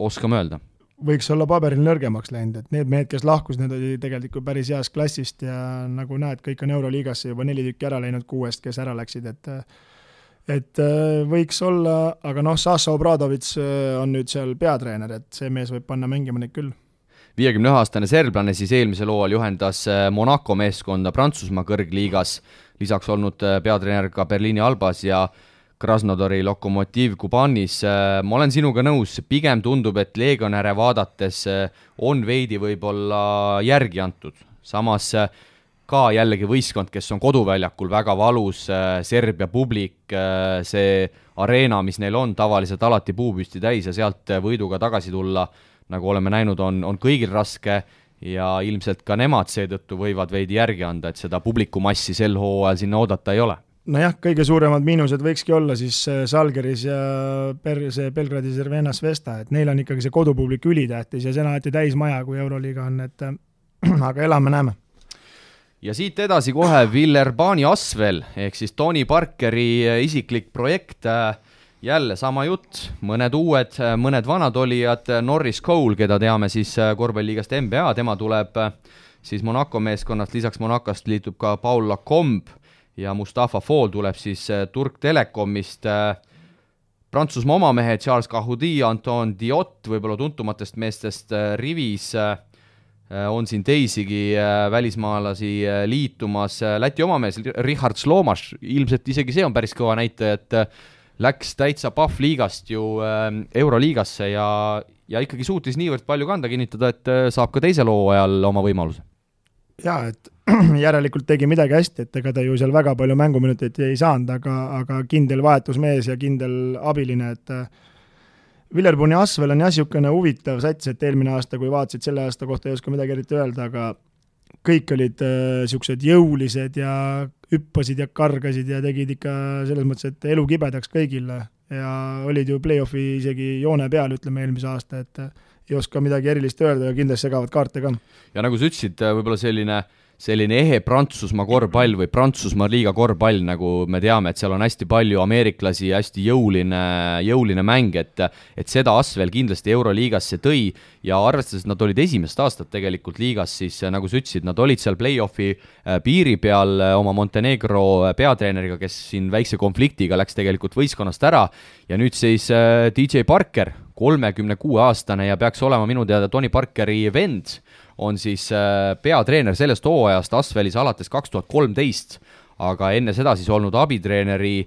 oskame öelda? Võiks olla paberil nõrgemaks läinud, et need mehed, kes lahkus, need oli tegelikult päris heast klassist ja nagu näed, kõik on Euroliigasse juba 4 tükki ära läinud 6, kes ära läksid, et võiks olla, aga noh, Saša Obradovic on nüüd seal peatreener, et see mees võib panna mängima neid küll. 51-aastane serblane siis eelmisel hooajal juhendas Monaco meeskonda Prantsusmaa kõrgliigas, lisaks olnud peatreener ka Berliini Albas ja Krasnodari Lokomotiv Kubanis. Ma olen sinuga nõus, pigem tundub, et legionäre vaadates on veidi võib-olla järgi antud. Samas ka jällegi võistkond, kes on koduväljakul väga valus, Serbia publik, see areena, mis neil on tavaliselt alati puupüsti täis ja sealt võiduga tagasi tulla, nagu oleme näinud, on kõigil raske ja ilmselt ka nemad seetõttu võivad veidi järgi anda, et seda publikumassi sel hooajal sinna oodata ei ole. Nojah, kõige suuremad miinused võikski olla siis Žalgiris ja see Belgradis Crvena Zvezda, et neil on ikkagi see kodupublik ülitähtis ja see on alati täismaja, kui Euroliiga on, et aga elame-näeme. Ja siit edasi kohe Villerbani Asvel, ehk siis Tony Parkeri isiklik projekt, jälle sama jutt, mõned uued, mõned vanad olijad, Norris Cole, keda teame siis korvpalliligast NBA, tema tuleb siis Monaco meeskonnast, lisaks Monacost liitub ka Paul Lacombe ja Mustafa Fall tuleb siis Turk Telekomist, Prantsusmaa omamehe Charles Cahoudi, Anton Diot, võib-olla tuntumatest meestest rivis, on siin teisigi välismaalasi liitumas, Läti omamees Richard Slomas, ilmselt isegi see on päris kõva näitaja, et läks täitsa Pahv-liigast ju Euroliigasse ja ikkagi suutis niivõrd palju kanda kinnitada, et saab ka teisel hooajal oma võimaluse. Jaa, et järelikult tegi midagi hästi, et ega ta ju seal väga palju mänguminuteid ei saanud, aga kindel vahetusmees ja kindel abiline, et Villerbani Asvel on niisugune huvitav sats, et eelmine aasta, kui vaatasid selle aasta kohta, ei oska midagi eriti öelda, aga kõik olid niisugused jõulised ja hüppasid ja kargasid ja tegid ikka selles mõttes, et elu kibedaks kõigile ja olid ju play-offi isegi joone peal, ütleme eelmise aasta, et ei oska midagi erilist öelda ja kindlasti segavad kaarte ka. Ja nagu sa ütlesid, võib-olla selline ehe Prantsusmaa korvpall või Prantsusmaa liiga korvpall, nagu me teame, et seal on hästi palju ameeriklasi ja hästi jõuline mäng, et seda Asvel kindlasti Euroliigasse tõi ja arvestades, et nad olid esimest aastat tegelikult liigas, siis nagu sa ütlesid, nad olid seal play-offi piiri peal oma Montenegro peatreeneriga, kes siin väikse konfliktiga läks tegelikult võistkonnast ära ja nüüd siis DJ Parker, 36-aastane ja peaks olema minu teada Tony Parkeri vend, on siis peatreener sellest hooajast Asvelis alates 2013, aga enne seda siis olnud abitreeneri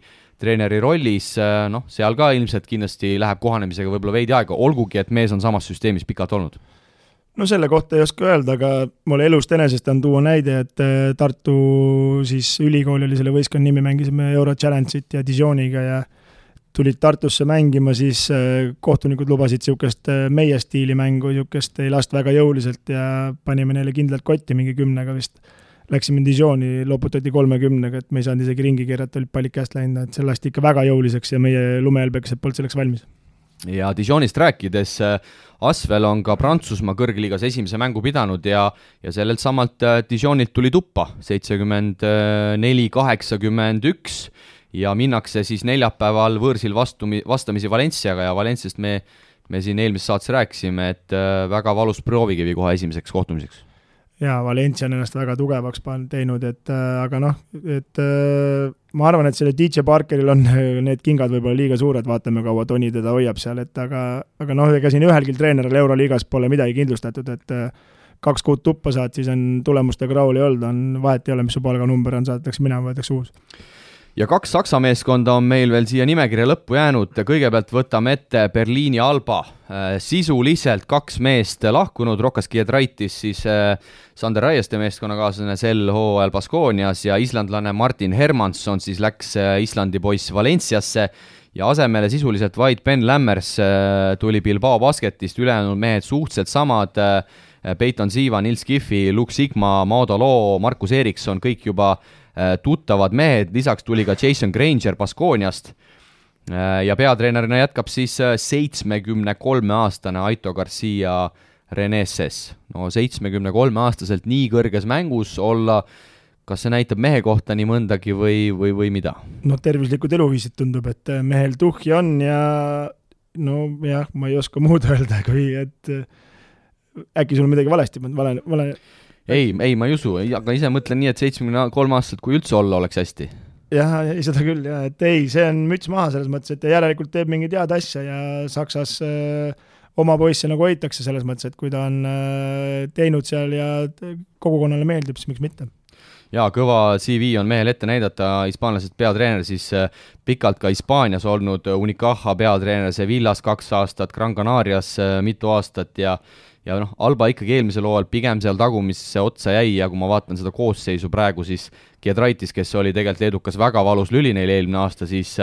rollis, seal ka ilmselt kindlasti läheb kohanemisega võib-olla veidi aega, olgugi, et mees on samas süsteemis pikalt olnud. No selle kohta ei oska öelda, aga mulle elust enesest on tuua näide, et Tartu siis ülikool oli selle võistkonna nimi, mängisime Euro Challenge'it ja Dijoniga ja tulid Tartusse mängima, siis kohtunikud lubasid niisugust meie stiili mängu, niisugust ei last väga jõuliselt ja panime neile kindlalt kotti mingi 10-ga vist. Läksime Dijoni, loputati 30-ga, et me ei saanud isegi ringi keerata, olid pallid käest läinud, et see lasti ikka väga jõuliseks ja meie lumehelbekesed polnud selleks valmis. Ja Dijonist rääkides, Asvel on ka Prantsusmaa kõrgliigas esimese mängu pidanud ja sellelt samalt Dijonilt tuli tuppa 74-81 ja minnakse siis neljapäeval võõrsil vastamisi Valenciaga ja Valenciast me siin eelmises saates rääkisime, et väga valus proovikivi kohe esimeseks kohtumiseks. Jaa, Valencia on ennast väga tugevaks teinud, aga ma arvan, et selle DJ Parkeril on need kingad võib-olla liiga suured, vaatame kaua Toni teda hoiab seal, aga ega siin ühelgi treeneril Euroliigas pole midagi kindlustatud, et 2 kuud tuppa saad, siis on tulemustega rahul ei olnud, on vahet ei ole, mis su palganumber on, saadetakse minema, võetakse uus. Ja 2 Saksa meeskonda on meil veel siia nimekirja lõppu jäänud, kõigepealt võtame ette Berliini Alba, sisuliselt 2 meest lahkunud, Rokas Giedraitis siis Sander Raieste meeskonnakaaslane sel hooajal Baskoonias ja islandlane Martin Hermansson siis läks Islandi poiss Valenciasse ja asemele sisuliselt vaid Ben Lammers tuli Bilbao basketist, ülejäänud mehed suhteliselt samad, Peyton Siva, Nils Giffi, Luke Sigma, Maudo Loo, Markus Eriksson, kõik juba tuttavad mehed, lisaks tuli ka Jason Granger Baskooniast ja peatreenerina jätkab siis 73-aastane Aito Garcia Reneses. No 73-aastaselt nii kõrges mängus olla, kas see näitab mehe kohta nii mõndagi või mida? No tervislikud eluviisid tundub, et mehel tuhhi on ja ma ei oska muud öelda, kui et äkki sul midagi valesti vale. Ei, ma ei usu, aga ise mõtlen nii, et 73 aastaselt, kui üldse olla, oleks hästi. Jah, seda küll, jah, et ei, see on müts maha selles mõttes, et järelikult teeb mingi tead asja ja Saksas oma poisse nagu hoitakse selles mõttes, et kui ta on teinud seal ja kogukonnale meeldib, siis miks mitte. Jaa, kõva CV on mehel ette näidata, hispaanlased peatreener, siis pikalt ka Hispaanias olnud Unicaja peatreener, Sevillas 2 aastat, Gran Canarias mitu aastat ja Alba ikkagi eelmisel hooajal pigem seal tagumisse otsa jäi ja kui ma vaatan seda koosseisu praegu, siis Giedraitis, kes oli tegelikult edukas väga valus lüli neil eelmine aasta, siis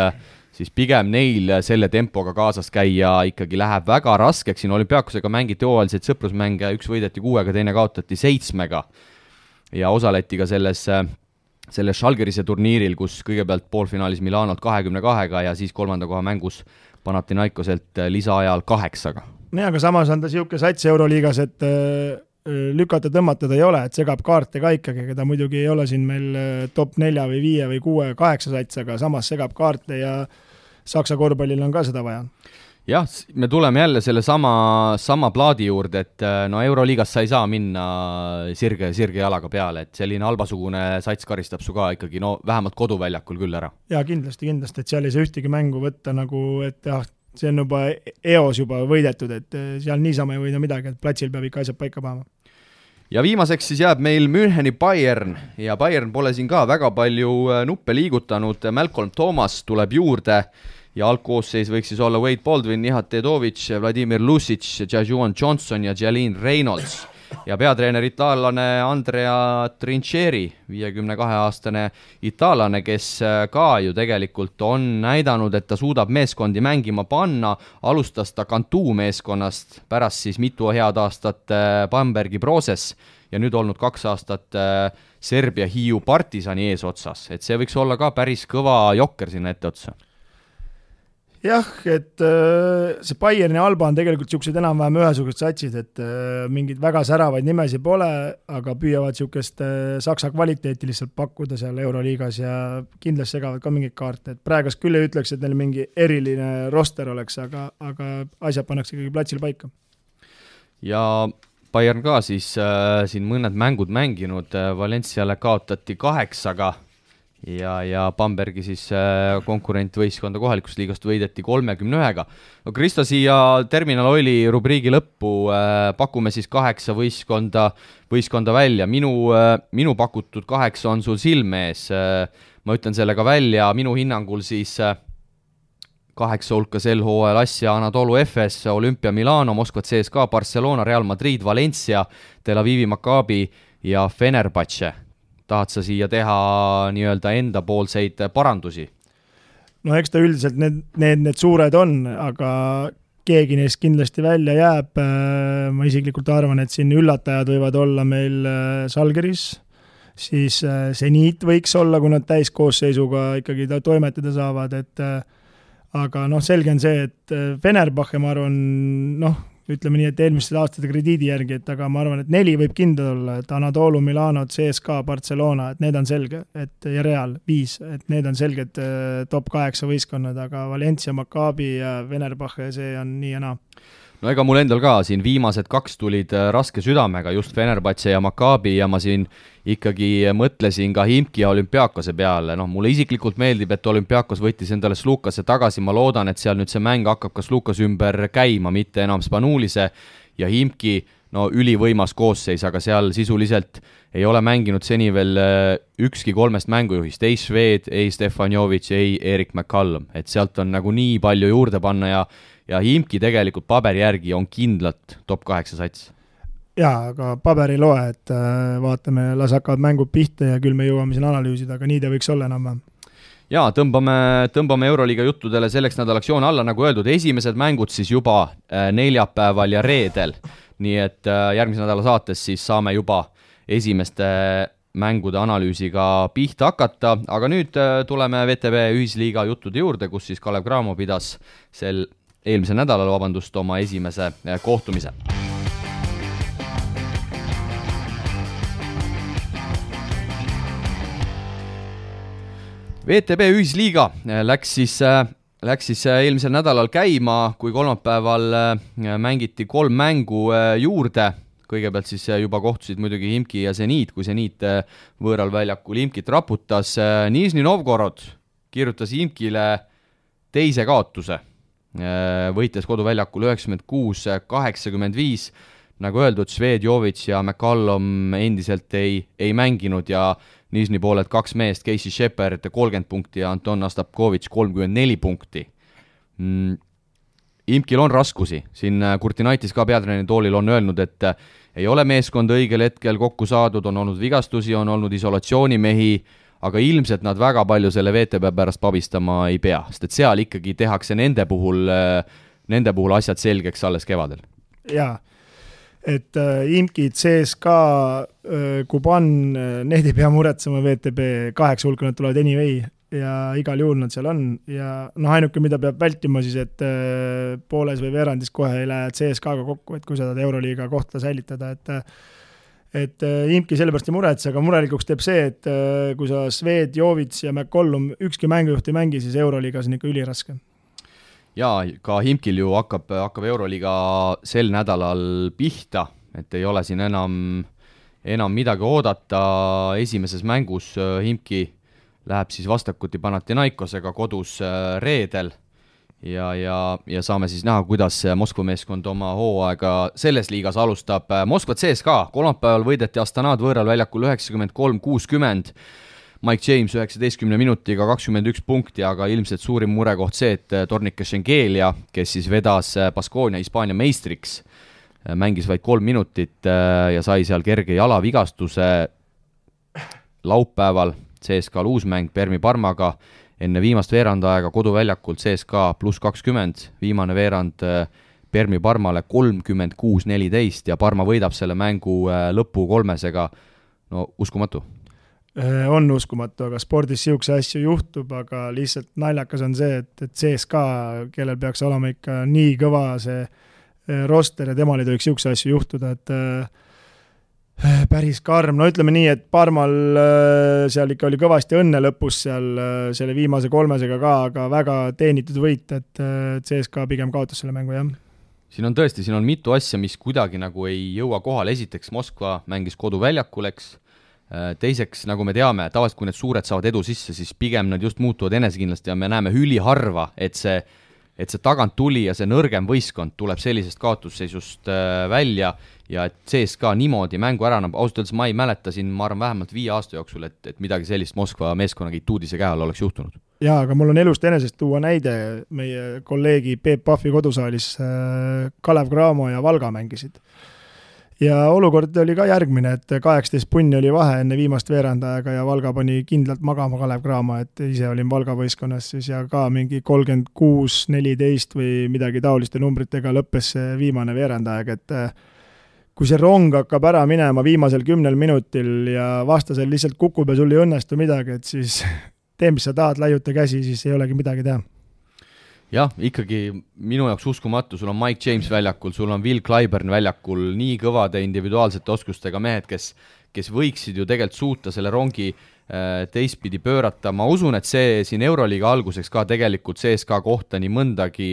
siis pigem neil selle tempoga kaasas käia ikkagi läheb väga raskeks, siin Olümpiakosega mängiti hooajaliseid sõprusmänge, üks võideti 6-ga, teine kaotati 7-ga ja osaleti ka selles Žalgirise turniiril, kus kõigepealt poolfinaalis Milanot 22-ga ja siis 3. koha mängus Panathinaikoselt lisaajal 8-ga. Nee, aga samas on ta siuke sats Euroliigas, et lükata tõmmatada ei ole, et segab kaarte ka ikkagi, keda muidugi ei ole siin meil top 4 või 5 või 6 või 8 sats, aga samas segab kaarte ja Saksa korvpallil on ka seda vaja. Jah, me tuleme jälle selle sama plaadi juurde, et no Euroliigas sa ei saa minna sirge jalaga peale, et selline albasugune sats karistab su ka ikkagi vähemalt koduväljakul küll ära. Ja kindlasti, et seal ei saa ühtegi mängu võtta nagu, et see on juba eos juba võidetud, et seal niisama ei võida midagi, et platsil peab ikka asjad paika panema. Ja viimaseks siis jääb meil Müncheni Bayern ja Bayern pole siin ka väga palju nuppe liigutanud, Malcolm Thomas tuleb juurde ja algkoosseis võiks siis olla Wade Baldwin, Nihat Tedovic, Vladimir Lucic, Jajuan Johnson ja Jalin Reynolds ja peatreener itaallane Andrea Trincheri, 52-aastane itaallane, kes ka ju tegelikult on näidanud, et ta suudab meeskondi mängima panna, alustas ta Cantu meeskonnast, pärast siis mitu head aastat Bambergi Proses ja nüüd olnud 2 aastat Serbia Hiiu Partisani eesotsas, et see võiks olla ka päris kõva jokker sinna etteotsa. Jah, et see Bayern ja Alba on tegelikult niisugused enam-vähem ühesugused satsid, et mingid väga säravaid nimesi pole, aga püüavad niisugust saksa kvaliteeti lihtsalt pakkuda seal Euroliigas ja kindlasti segavad ka mingeid kaarte. Et praegust küll ei ütleks, et neil mingi eriline roster oleks, aga asjad pannakse ikkagi platsil paika. Ja Bayern ka siis siin mõned mängud mänginud, Valenciale kaotati 8-ga ja Bambergi siis konkurentvõistkonda kohalikust liigast võideti 31-ga. No Kristo, siia Terminal Oili rubriigi lõppu pakume siis 8 võistkonda välja. Minu pakutud 8 on sul silme ees. Ma ütlen selle ka välja, minu hinnangul siis 8 hulka sel hooajal Asja, Anadolu Efes, Olympia Milano, Moskva CSKA, Barcelona, Real Madrid, Valencia, Tel Avivi Maccabi ja Fenerbahce. Tahad sa siia teha nii-öelda enda poolseid parandusi? No eks ta üldiselt need suured on, aga keegi neist kindlasti välja jääb. Ma isiklikult arvan, et siin üllatajad võivad olla meil Žalgiris, siis Zenit võiks olla, kui nad täiskoosseisuga ikkagi toimetada saavad, aga selge on see, et Fenerbahce, ma arvan, ütleme nii, et eelmiste aastate krediidi järgi, et aga ma arvan, et 4 võib kindel olla, et Anadolu, Milano, CSKA, Barcelona, et need on selge, ja Real 5, et need on selged top 8 võistkonnad, aga Valencia, Maccabi ja Fenerbahce, see on nii ja naa. No ega mul endal ka siin viimased 2 tulid raske südamega, just Fenerbahce ja Maccabi ja ma siin ikkagi mõtlesin ka Himki ja Olümpiakose peale. Mulle isiklikult meeldib, et Olümpiakos võttis endale Slukase tagasi, ma loodan, et seal nüüd see mäng hakkab ka Slukas ümber käima, mitte enam Spanulise ja Himki, ülivõimas koosseis, aga seal sisuliselt ei ole mänginud seni veel ükski 3 mängujuhist, ei Šved, ei Stefanjovic, ei Erik McCallum, et sealt on nagu nii palju juurde panna ja Himki tegelikult paberi järgi on kindlalt top 8 sats. Jaa, aga paber ei loe, et vaatame, las hakkavad mängud pihta ja küll me jõuame siin analüüsida, aga nii ta võiks olla enam. Jaa, tõmbame Euroliiga juttudele selleks nädalaks joon alla, nagu öeldud, esimesed mängud siis juba neljapäeval ja reedel, nii et järgmise nädala saates siis saame juba esimeste mängude analüüsiga pihta hakata, aga nüüd tuleme VTB ühisliiga juttude juurde, kus siis Kalev Cramo pidas eelmisel nädalal, oma esimese kohtumise. VTB ühisliiga läks siis eelmisel nädalal käima, kui kolmapäeval mängiti 3 mängu juurde. Kõigepealt siis juba kohtusid muidugi Himki ja Zenit, kui Zenit võõral väljakul Himkit raputas. Nižni Novgorod kirjutas Himkile teise kaotuse, võites koduväljakul 96-85. Nagu öeldud, Švedjovic ja McCallum endiselt ei mänginud ja Nižni pooled 2 meest, Casey Shepard 30 punkti ja Anton Astapkovitš 34 punkti. Himkil on raskusi. Siin Kurtinaitis ka peatreeneri toolil on öelnud, et ei ole meeskond õigel hetkel kokku saadud, on olnud vigastusi, on olnud isolatsioonimehi, aga ilmselt nad väga palju selle VTB pärast pabistama ei pea, sest et seal ikkagi tehakse nende puhul asjad selgeks alles kevadel. Jaa, et IMKI, CSKA, Kuban, need ei pea muretsema VTB 8 hulka, nad tulevad anyway ja igal juhul nad seal on ja ainuke, mida peab vältima siis, et pooles või veerandis kohe ei lähe CSKA-ga kokku, et kui sa tahad Euroliiga kohta säilitada, et IMKI sellepärast ei muretse, aga murelikuks teeb see, et kui sa Sved, Jovits ja McCollum ükski mängujuht ei mängi, siis Euroliigas on ikka üliraske. Jaa, ka IMKil ju hakkab Euroliiga sel nädalal pihta, et ei ole siin enam midagi oodata. Esimeses mängus IMKI läheb siis vastakuti Panathinaikosega kodus reedel ja saame siis näha, kuidas Moskva meeskond oma hooaega selles liigas alustab. Moskva CSKA kolmapäeval võideti Astanad võõral väljakul 93-60, Mike James 19 minutiga 21 punkti, aga ilmselt suurim murekoht see, et Tornike Schengelia, kes siis vedas Baskonia Hispaania meistriks, mängis vaid 3 minutit ja sai seal kerge jalavigastuse. Laupäeval CSKA uusmäng Permi Parmaga enne viimast veerandaega koduväljakult CSKA +20, viimane veerand Permi Parmale 36-14 ja Parma võidab selle mängu lõpu 3-sega. No uskumatu. On uskumatu, aga spordis siukse asju juhtub, aga lihtsalt naljakas on see, et CSKA, kellel peaks olema ikka nii kõva see roster ja temal ei tohiks siukse asju juhtuda, et päris karm. No ütleme nii, et Parmal seal ikka oli kõvasti õnne lõpus seal selle viimase 3-sega ka, aga väga teenitud võit, et CSKA pigem kaotas selle mängu, jah. Siin on mitu asja, mis kuidagi nagu ei jõua kohale. Esiteks Moskva mängis koduväljakul, eks. Teiseks, nagu me teame, tavaliselt kui need suured saavad edu sisse, siis pigem nad just muutuvad enesekindlasti ja me näeme üliharva, et see tagant tuli ja see nõrgem võistkond tuleb sellisest kaotusseisust välja ja et CSKA niimoodi mängu ära, ausalt öeldes ma ei mäleta siin, ma arvan vähemalt 5 aasta jooksul, et midagi sellist Moskva meeskonnaga Ituudise käe all oleks juhtunud. Jaa, aga mul on elust enesest tuua näide, meie kolleegi Peep Pahvi kodusaalis Kalev Cramo ja Valga mängisid. Ja olukord oli ka järgmine, et 18 punni oli vahe enne viimast veerandajaga ja Valga pani kindlalt magama Kalev Cramo, et ise olin Valga võistkonnas siis ja ka mingi 36-14 või midagi taoliste numbritega lõppes see viimane veerandajaga, et kui see rong hakkab ära minema viimasel 10 minutil ja vastasel lihtsalt kukub ja sul ei õnnestu midagi, et siis tee, mis sa tahad, laiuta käsi, siis ei olegi midagi teha. Jah, ikkagi minu jaoks uskumatu, sul on Mike James väljakul, sul on Will Clyburn väljakul, nii kõvade individuaalsete oskustega mehed, kes võiksid ju tegelikult suuta selle rongi teistpidi pöörata. Ma usun, et see siin Euroliiga alguseks ka tegelikult CSKA kohta nii mõndagi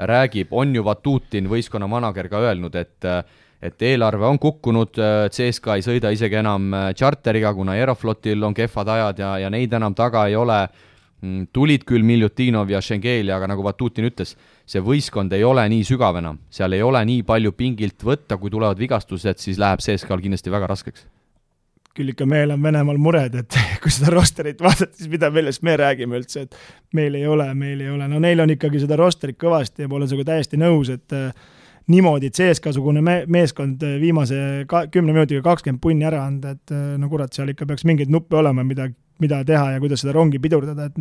räägib, on ju Vatutin võistkonna manager ka öelnud, et eelarve on kukkunud, CSKA ei sõida isegi enam charteriga, kuna Aeroflotil on kehvad ajad ja neid enam taga ei ole. Tulid küll Miljutinov ja Schengelia, aga nagu Vatutin ütles, see võistkond ei ole nii sügav enam, seal ei ole nii palju pingilt võtta, kui tulevad vigastused, siis läheb CSKA-l kindlasti väga raskeks. Küll ikka meil on Venemaal mured, et kui seda rosterit vaadata, siis mida millest me räägime üldse, et meil ei ole. No neil on ikkagi seda rosterit kõvasti ja ma olen sinuga täiesti nõus, et niimoodi CSKA-sugune meeskond viimase 10 minutiga 20 punni ära anda, et no kurat, seal ikka peaks mingeid nuppe olema, mida teha ja kuidas seda rongi pidurdada, et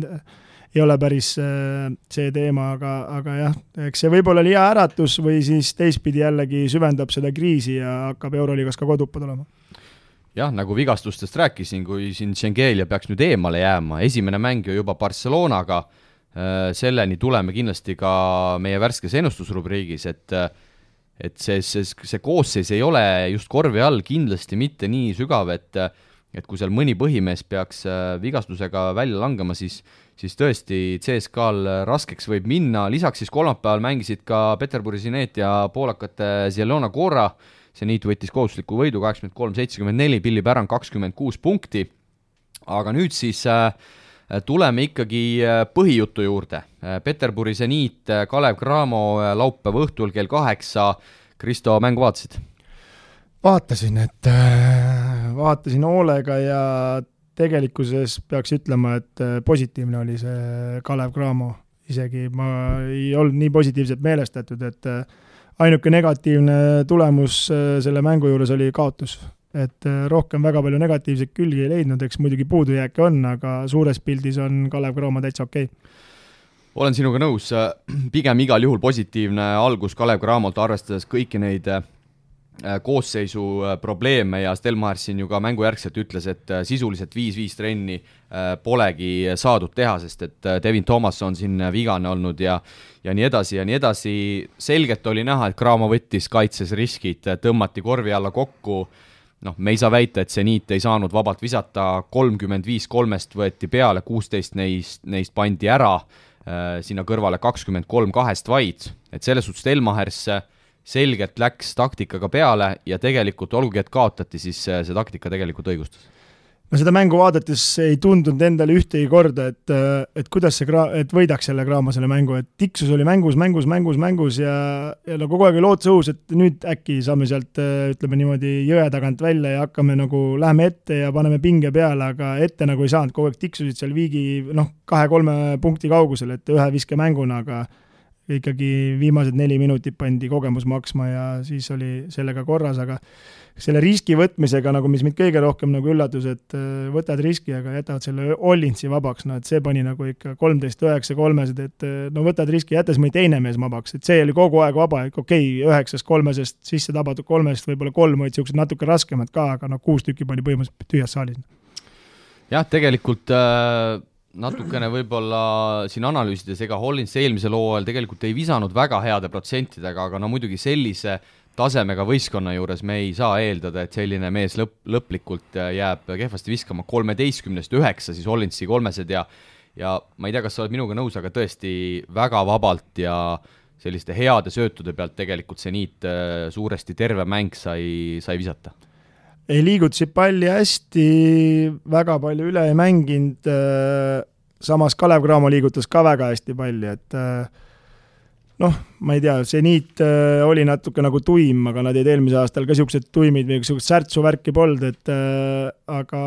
ei ole päris see teema, aga jah, eks see võib-olla oli hea äratus või siis teistpidi jällegi süvendab seda kriisi ja hakkab Euroliigas ka kodupad olema. Jah, nagu vigastustest rääkisin, kui siin Schengelia peaks nüüd eemale jääma, esimene mäng ju juba Barcelonaga, selleni tuleme kindlasti ka meie värskes ennustusrubriigis, et see koosseis ei ole just korvi all kindlasti mitte nii sügav, et kui seal mõni põhimees peaks vigastusega välja langema, siis tõesti CSKA-l raskeks võib minna. Lisaks siis kolmapäeval mängisid ka Peterburi Sinet ja poolakate Zielona Gora. See niit võttis kohustusliku võidu 83-74, Billy Baron 26 punkti. Aga nüüd siis tuleme ikkagi põhijutu juurde. Peterburi Sinet, Kalev Cramo laupäeva õhtul kell 8. Kristo, mängu vaatasid? Vaatasin hoolega ja tegelikkuses peaks ütlema, et positiivne oli see Kalev Cramo. Isegi ma ei olnud nii positiivselt meelestatud, et ainuke negatiivne tulemus selle mängu juures oli kaotus. et rohkem väga palju negatiivseid külgi ei leidnud, eks muidugi puudujääke on, aga suures pildis on Kalev Cramo täitsa okei. Olen sinuga nõus, pigem igal juhul positiivne algus Kalev Cramolt, arvestades kõiki neid koosseisu probleeme ja Stelmar siin ju ka mängujärgselt ütles, et sisuliselt 5-5 trenni polegi saadud teha, sest et Devin Thomas on siin vigane olnud ja nii edasi ja nii edasi. Selgelt oli näha, et Cramo võttis kaitses riskid, tõmmati korvi alla kokku. Me ei saa väita, et Zenit ei saanud vabalt visata, 35 kolmest võeti peale, 16 neist pandi ära, sinna kõrvale 23 kahest vaid, et selles suhtes Stelmahers selgelt läks taktikaga peale ja tegelikult olgugi, et kaotati, siis see taktika tegelikult õigustas. No seda mängu vaadates ei tundunud endale ühtegi korda, et kuidas et võidaks selle Cramo selle mängu, et tiksus oli mängus ja no kogu aeg oli lootus õhus, et nüüd äkki saame sealt, ütleme niimoodi, jõe tagant välja ja hakkame läheme ette ja paneme pinge peale, aga ette nagu ei saanud, kogu aeg tiksusid seal viigi 2-3 punkti kaugusel, et ühe viske mänguna, aga ikkagi viimased 4 minutit pandi kogemus maksma ja siis oli sellega korras, aga selle riski võtmisega, mis mind kõige rohkem üllatus, et võtad riski, aga jätavad selle Ollinsi vabaks, et see pani ikka 13-9 kolmesed, et võtad riski, jättes mõni teine mees vabaks, et see oli kogu aeg vaba, et 9 kolmesest sisse tabatud 3-st, võib-olla 3 olid siuksed natuke raskemad ka, aga 6 tükki pani põhimõtteliselt tühjas saalis. Jah, tegelikult natukene võib-olla siin analüüsides, ega Hollins eelmisel hooajal tegelikult ei visanud väga heade protsentidega, aga muidugi sellise tasemega võistkonna juures me ei saa eeldada, et selline mees lõplikult jääb kehvasti viskama 13-9 siis Hollinsi kolmesed ja ma ei tea, kas sa oled minuga nõus, aga tõesti väga vabalt ja selliste heade söötude pealt tegelikult Zenit suuresti terve mäng sai visata. Ei liigutasid palli hästi, väga palju üle ei mänginud, samas Kalev Cramo liigutas ka väga hästi palli, et ma ei tea, Zenit oli natuke tuim, aga nad jäid eelmise aastal ka siuksed tuimid või siuksed särtsu värki polnud, et aga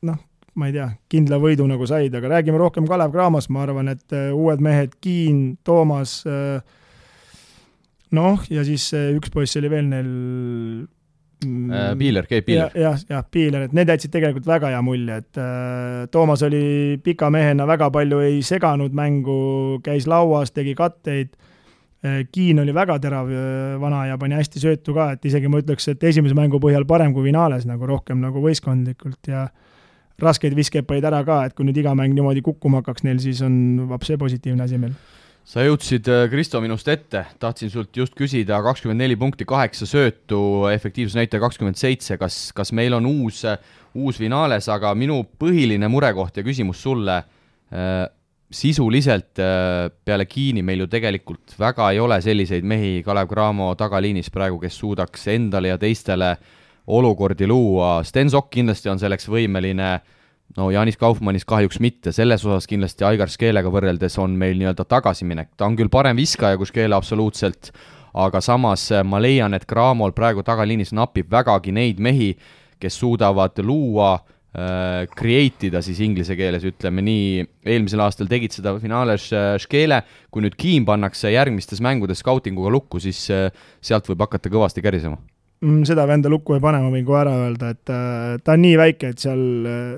ma ei tea, kindla võidu said, aga räägime rohkem Kalev Cramost, ma arvan, et uued mehed, Kiin, Toomas, ja siis üks poiss oli veel neil Piiler, Keib Piiler. Jah, Piiler, et need jätsid tegelikult väga hea mulje, et Toomas oli pika mehena, väga palju ei seganud mängu, käis lauas, tegi katteid, Kiin oli väga terav vana ja pani hästi söötu ka, et isegi ma ütleks, et esimese mängu põhjal parem kui finaales, rohkem võistkondlikult ja raskeid viskeid panid ära ka, et kui nüüd iga mäng niimoodi kukkuma hakkaks neil, siis on vapse positiivne asi meil. Sa jõudsid, Kristo, minust ette, tahtsin sult just küsida 24 punkti, 8 söötu, efektiivsusnäitaja 27, kas meil on uus finaales, aga minu põhiline murekoht ja küsimus sulle, sisuliselt peale Kiini meil ju tegelikult väga ei ole selliseid mehi Kalev Cramo tagaliinis praegu, kes suudaks endale ja teistele olukordi luua. Stensok kindlasti on selleks võimeline, Janis Kaufmannis kahjuks mitte, selles osas kindlasti Aigar Skeelega võrreldes on meil nii-öelda tagasiminek. Ta on küll parem viskaja kui Skeele absoluutselt, aga samas ma leian, et Cramol praegu tagaliinis napib vägagi neid mehi, kes suudavad luua, create'ida siis inglise keeles, ütleme nii, eelmisel aastal tegid seda finaales Skeele, kui nüüd Kiin pannakse järgmistes mängudes scoutinguga lukku, siis sealt võib hakata kõvasti kärisema. Seda venda lukku ei pane, ma võin kohe ära öelda, et ta on nii väike, et seal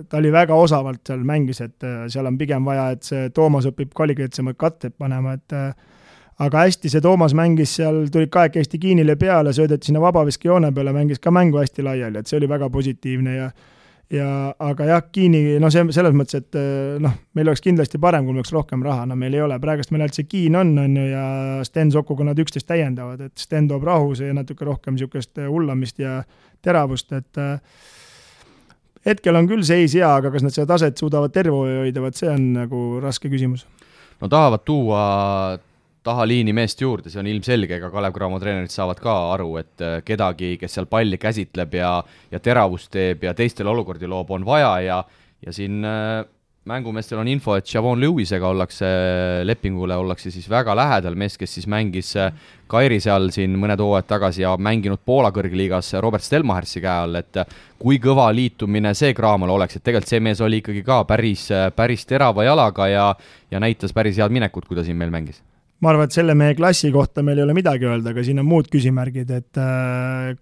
ta oli väga osavalt seal mängis, et seal on pigem vaja, et see Toomas õpib kvaliteetsemad katted panema, et aga hästi see Toomas mängis seal, tulid kahekesti Kiinile peale, söödeti sinna vabaviske joone peale, mängis ka mängu hästi laiali, et see oli väga positiivne aga jah, Kiini, selles mõttes, et meil oleks kindlasti parem, kui meil oleks rohkem raha, meil ei ole, praegust meil see Kiin on ja Sten Sokuga nad 11 täiendavad, et Sten toob rahuse ja natuke rohkem niisugust hullamist ja teravust, et hetkel on küll seis hea, aga kas nad seda taset suudavad terve hoida, see on raske küsimus. Tahavad tuua tahaliini meest juurde, see on ilmselge, ega Kalev Cramo treenerid saavad ka aru, et kedagi, kes seal palli käsitleb ja teravust teeb ja teistele olukordi loob, on vaja ja siin mängumeestel on info, et Javon Lewisega lepingule ollakse siis väga lähedal, mees, kes siis mängis Kairi seal siin mõned hooajad tagasi ja mänginud Poola kõrgliigas Robert Stelmachersi käe all, et kui kõva liitumine see Cramole oleks, et tegelikult see mees oli ikkagi ka päris terava jalaga ja näitas päris head minekut, kui ta siin meil mängis. ma arvan, et selle meie klassi kohta meil ei ole midagi öelda, aga siin on muud küsimärgid, et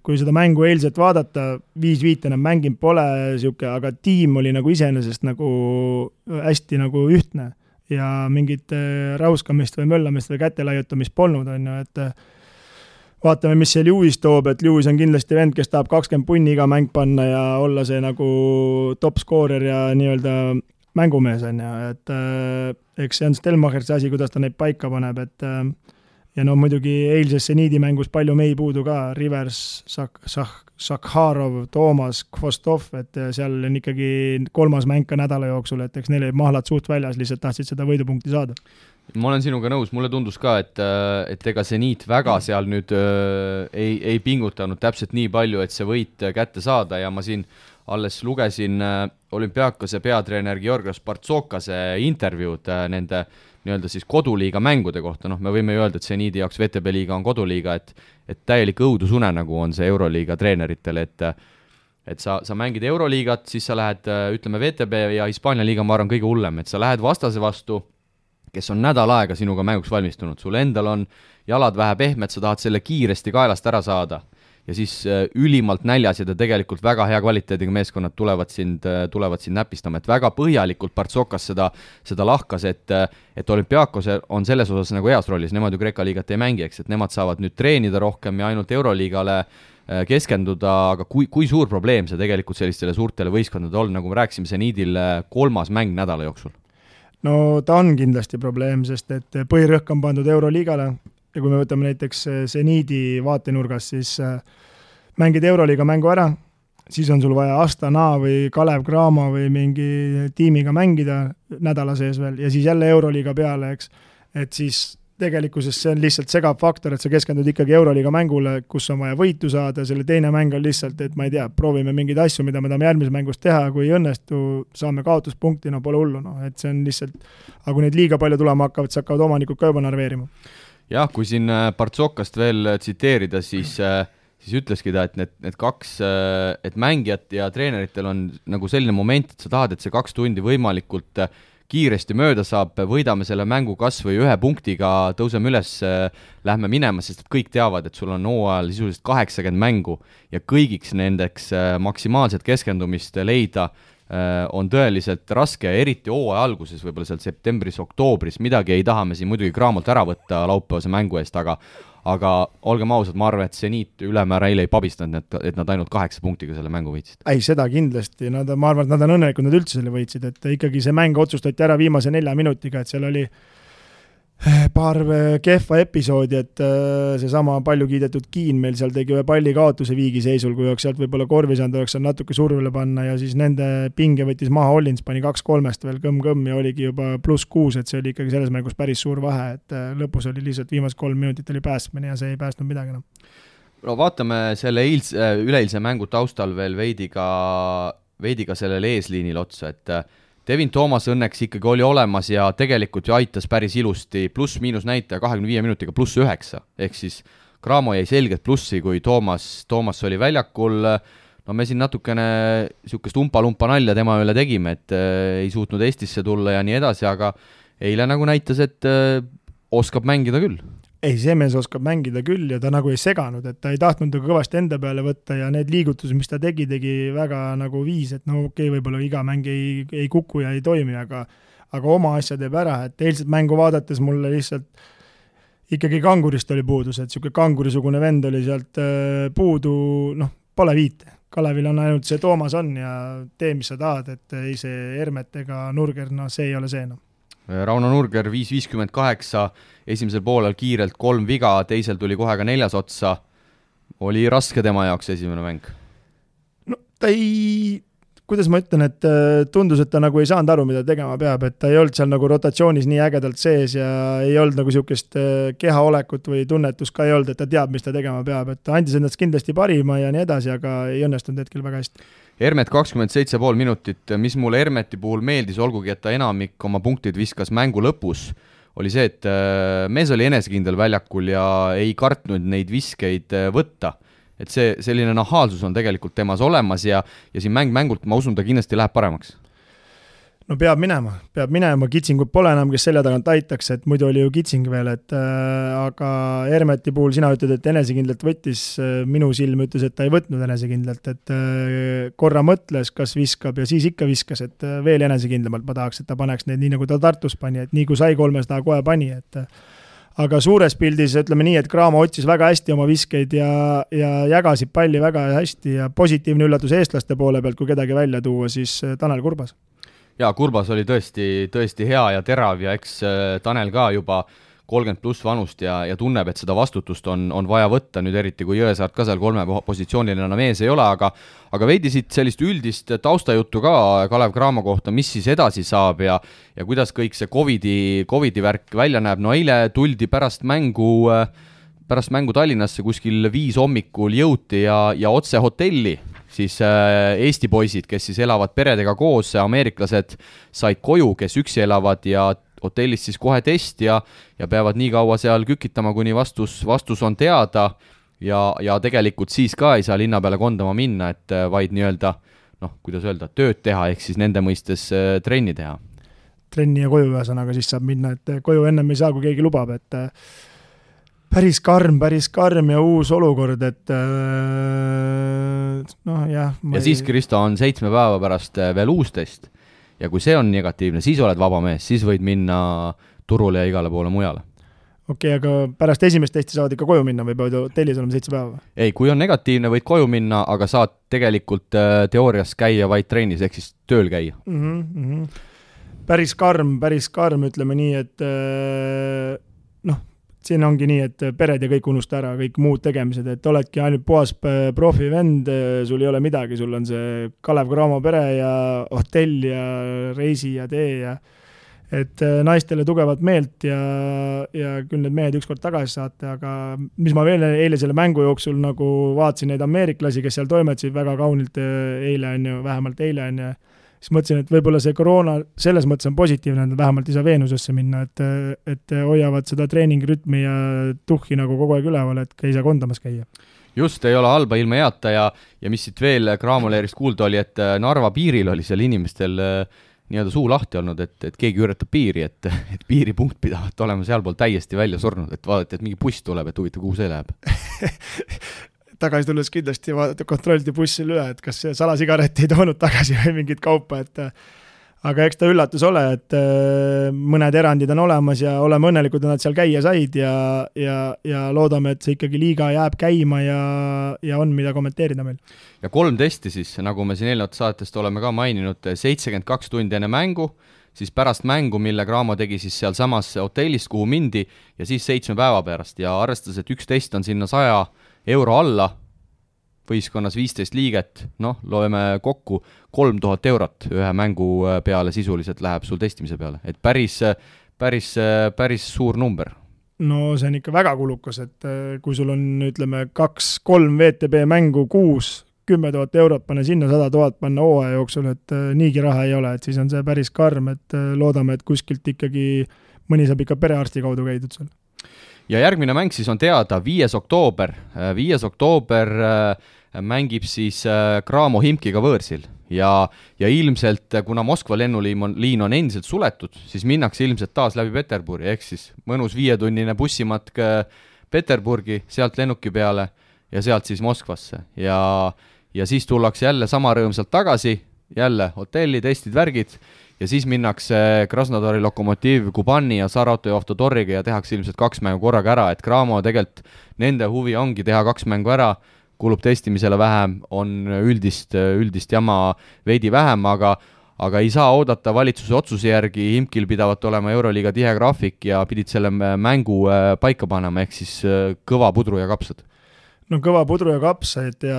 kui seda mängu eilset vaadata, 5-5 enam mänginud pole siuke, aga tiim oli nagu iseenesest nagu hästi nagu ühtne ja mingit rauskamist või möllamist või kätelaiutamist polnud, on ju, et vaatame, mis see Lewis toob, et Lewis on kindlasti vend, kes tahab 20 punni iga mäng panna ja olla see nagu top scorer ja nii-öelda mängumees on ju, et eks see on Stelmachersi asi, kuidas ta neid paika paneb, et ja no muidugi eilses Seniidi mängus palju mei puudu ka, Rivers, Sakharov, Toomas, Kvostov, et seal on ikkagi 3. mäng ka nädala jooksul, et eks neil olid mahlad suht väljas, lihtsalt tahtsid seda võidupunkti saada. Ma olen sinuga nõus, mulle tundus ka, et ega Seniit väga seal nüüd ei pingutanud täpselt nii palju, et see võit kätte saada ja ma siin alles lugesin Olümpiakose peatreener Georgios Bartsokase intervjuud nende nii-öelda siis koduliiga mängude kohta, me võime ju öelda, et Seniidi jaoks VTB liiga on koduliiga, et täielik õudusune nagu on see Euroliiga treeneritel, et sa mängid Euroliigat, siis sa lähed, ütleme VTB ja Hispaania liiga, ma arvan, kõige hullem, et sa lähed vastase vastu, kes on nädal aega sinuga mänguks valmistunud, sul endal on jalad vähe pehmed, sa tahad selle kiiresti kaelast ära saada ja siis ülimalt näljas ja tegelikult väga hea kvaliteediga meeskonnad tulevad sind näpistama, et väga põhjalikult Partsokas seda lahkas, et Olümpiakos on selles osas nagu heas rollis, nemad ju Kreeka liigat ei mängi, eks, et nemad saavad nüüd treenida rohkem ja ainult Euroliigale keskenduda, aga kui suur probleem see tegelikult sellistele suurtele võistkondadele on, nagu me rääkisime, Seniidil 3. mäng nädala jooksul? No ta on kindlasti probleem, sest et põhirõhk on pandud Euroliigale ja kui me võtame näiteks Seniidi vaatenurgas, siis mängid Euroliiga mängu ära, siis on sul vaja Astana või Kalev Cramo või mingi tiimiga mängida nädala sees veel ja siis jälle Euroliiga peale, eks. Et siis tegelikkuses see on lihtsalt segav faktor, et sa keskendud ikkagi Euroliiga mängule, kus on vaja võitu saada, selle teine mäng on lihtsalt, et ma ei tea, proovime mingeid asju, mida me tahame järgmises mängus teha, kui ei õnnestu, saame kaotuspunkti, no pole hullu, et see on lihtsalt, aga kui neid liiga palju tulema hakkavad, siis hakkavad omanikud ka juba narveerima. Jah, kui siin Partsokast veel tsiteerida, siis ütleski ta, et need kaks, et mängijat ja treeneritel on nagu selline moment, et sa tahad, et see 2 tundi võimalikult kiiresti mööda saab, võidame selle mängu kas või 1 punktiga, tõuseme üles, lähme minema, sest kõik teavad, et sul on hooajal sisuliselt 80 mängu ja kõigiks nendeks maksimaalset keskendumist leida on tõeliselt raske, eriti hooaja alguses, võib-olla seal septembris-oktoobris, midagi ei taha me siin muidugi Cramolt ära võtta laupäevase mängu eest, aga olgem ausad, ma arvan, et Seniit ülemäära eile ei pabistanud, et nad ainult 8 punktiga selle mängu võitsid. Ei, seda kindlasti, ma arvan, et nad on õnnelikud, nad üldse selle võitsid, et ikkagi see mäng otsustati ära viimase 4 minutiga, et seal oli paar kehva episoodi, et seesama palju kiidetud Kiin meil seal tegi ühe palli kaotuse viigiseisul, kui oleks sealt võib-olla korvi saanud, oleks seal natuke survele panna ja siis nende pinge võttis maha Hollins, pani 2-3 veel kõmm-kõmm ja oligi juba +6, et see oli ikkagi selles mängus päris suur vahe, et lõpus oli lihtsalt viimased 3 minutit oli päästmine ja see ei päästnud midagi. No vaatame selle üleeilse mängu taustal veel veidi ka sellele eesliinil otsa, et Devin Thomas õnneks ikkagi oli olemas ja tegelikult ju aitas päris ilusti, pluss-miinus näitaja 25 minutiga +9, ehk siis Cramo jäi selgelt plussi, kui Thomas oli väljakul, no me siin natukene niisugust umpa-lumpa nalja tema üle tegime, et ei suutnud Eestisse tulla ja nii edasi, aga eile nagu näitas, et oskab mängida küll. Ei, see mees oskab mängida küll ja ta nagu ei seganud, et ta ei tahtnud kõvasti enda peale võtta ja need liigutused, mis ta tegi väga nagu viis, et no okei, võib-olla iga mäng ei kuku ja ei toimi, aga oma asja teeb ära, et eilset mängu vaadates mulle lihtsalt ikkagi kangurist oli puudus, et niisugune kangurisugune vend oli sealt puudu, pole viite. Kalevil on ainult see Toomas on ja tee, mis sa tahad, et ei see Hermet ega Nurger, see ei ole see . Rauno Nurger 5.58, esimesel poolel kiirelt 3 viga, teisel tuli kohe ka 4 otsa. Oli raske tema jaoks esimene mäng? No ta ei, kuidas ma ütlen, et tundus, et ta nagu ei saanud aru, mida tegema peab, et ta ei olnud seal nagu rotatsioonis nii ägedalt sees ja ei olnud nagu niisugust kehaolekut või tunnetus ka ei olnud, et ta teab, mis ta tegema peab, et ta andis endast kindlasti parima ja nii edasi, aga ei õnnestunud hetkel väga hästi. Hermet 27,5 minutit, mis mulle Hermeti puhul meeldis, olgugi, et ta enamik oma punktid viskas mängu lõpus, oli see, et mees oli enesekindel väljakul ja ei kartnud neid viskeid võtta. Et see selline nahaalsus on tegelikult temas olemas ja siin mängult ma usun, ta kindlasti läheb paremaks. no peab minema, Kitsingut pole enam, kes selja tagant aitaks, et muidu oli ju Kitsing veel, et aga Hermeti puhul sina ütled, et enesekindlalt võttis, minu silm ütles, et ta ei võtnud enesekindlalt, et korra mõtles, kas viskab ja siis ikka viskas, et veel enesekindlamalt ma tahaks, et ta paneks neid nii, nagu ta Tartus pani, et nii kui sai 300 kohe pani, et aga suures pildis ütleme nii, et Cramo otsis väga hästi oma viskeid ja jagasid palli väga hästi ja positiivne üllatus eestlaste poole pealt, kui kedagi välja tuua, siis Tanel Kurbas. Jaa, Kurbas oli tõesti hea ja terav ja eks Tanel ka juba 30 pluss vanust ja tunneb, et seda vastutust on vaja võtta, nüüd eriti kui Jõesaart ka seal 3 positsioonil enam ees ei ole, aga veidi siit sellist üldist taustajuttu ka Kalev Cramo kohta, mis siis edasi saab ja kuidas kõik see COVID-i värk välja näeb. No eile tuldi pärast mängu Tallinnasse kuskil 5 hommikul jõuti ja otse hotelli siis Eesti poisid, kes siis elavad peredega koos, ameeriklased said koju, kes üksi elavad ja hotellis siis kohe test ja peavad nii kaua seal kükitama, kuni vastus on teada ja tegelikult siis ka ei saa linna peale kondama minna, et vaid nii-öelda, kuidas öelda, tööd teha, ehk siis nende mõistes trenni teha. Trenni ja koju ühesõnaga siis saab minna, et koju ennem ei saa, kui keegi lubab, et päris karm ja uus olukord, et jah. Ja siis, Kristo, on 7 päeva pärast veel uus test ja kui see on negatiivne, siis oled vaba mees, siis võid minna turule ja igale poole mujale. Okei, aga pärast esimest testi saavad ikka koju minna või peavad hotellis olema 7 päeva? Ei, kui on negatiivne, võid koju minna, aga saad tegelikult teoorias käia vaid trennis, ehk siis tööl käia. Päris karm, ütleme nii, et siin ongi nii, et pered ja kõik unusta ära, kõik muud tegemised, et oledki ainult puhas profivend, sul ei ole midagi, sul on see Kalev Cramo pere ja hotell ja reisi ja tee ja et naistele tugevat meelt ja küll need mehed ükskord tagasi saate, aga mis ma veel eile selle mängu jooksul nagu vaatasin neid ameeriklasi, kes seal toimetasid väga kaunilt vähemalt eile on ja siis mõtlesin, et võib-olla see koroona selles mõttes on positiivne, et vähemalt ei saa Veenusesse minna, et hoiavad seda treeningrütmi ja tuhhi nagu kogu aeg üleval, et ei saa kondamas käia. Just, ei ole halba ilma heata ja mis siit veel Cramo leerist kuulda oli, et Narva piiril oli seal inimestel nii-öelda suu lahti olnud, et keegi üritab piiri, et piiripunkt pidavat olema sealpool täiesti välja surnud, et vaadati, et mingi buss tuleb, et huvitav, kuhu see läheb. Tagasi tulles kindlasti kontrolliti bussil üle, et kas see salasigaret ei toonud tagasi või mingit kaupa, et aga eks ta üllatus ole, et mõned erandid on olemas ja oleme õnnelikud, et nad seal käia said ja loodame, et see ikkagi liiga jääb käima ja on mida kommenteerida meil. Ja 3 testi siis, nagu me siin eelnevat saatest oleme ka maininud, 72 tundi enne mängu, siis pärast mängu, mille Cramo tegi siis seal samas hotellist, kuhu mindi ja siis 7 päeva pärast ja arvestades, et üks test on sinna 100 euro alla, võistkonnas 15 liiget, loeme kokku 3000 eurot ühe mängu peale sisuliselt läheb sul testimise peale, et päris suur number. No see on ikka väga kulukas, et kui sul on, ütleme, 2-3 VTB mängu kuus, 10 000 eurot panna sinna, 100 000 panna hooaja jooksul, et niigi raha ei ole, et siis on see päris karm, et loodame, et kuskilt ikkagi mõni saab ikka perearsti kaudu käidud seal. Ja järgmine mäng siis on teada 5. oktoober. 5. oktoober mängib siis Cramo Himkiga võõrsil ja ilmselt, kuna Moskva lennuliin on endiselt suletud, siis minnakse ilmselt taas läbi Peterburi, ehk siis mõnus 5-tunnine bussimatk Peterburgi, sealt lennuki peale ja sealt siis Moskvasse ja siis tullakse jälle sama rõõmsalt tagasi, jälle hotelli, testid, värgid ja siis minnakse Krasnodari Lokomotiv, Kubani ja Saratov Avtodoriga ja tehakse ilmselt 2 mängu korraga ära, et Cramo tegelikult nende huvi ongi teha 2 mängu ära, kulub testimisele vähem, on üldist jama veidi vähem, aga ei saa oodata valitsuse otsuse järgi, Himkil pidavat olema Euroliiga tihe graafik ja pidid selle mängu paika panema, ehk siis kõva pudru ja kapsad. No kõva pudru ja kapsad ja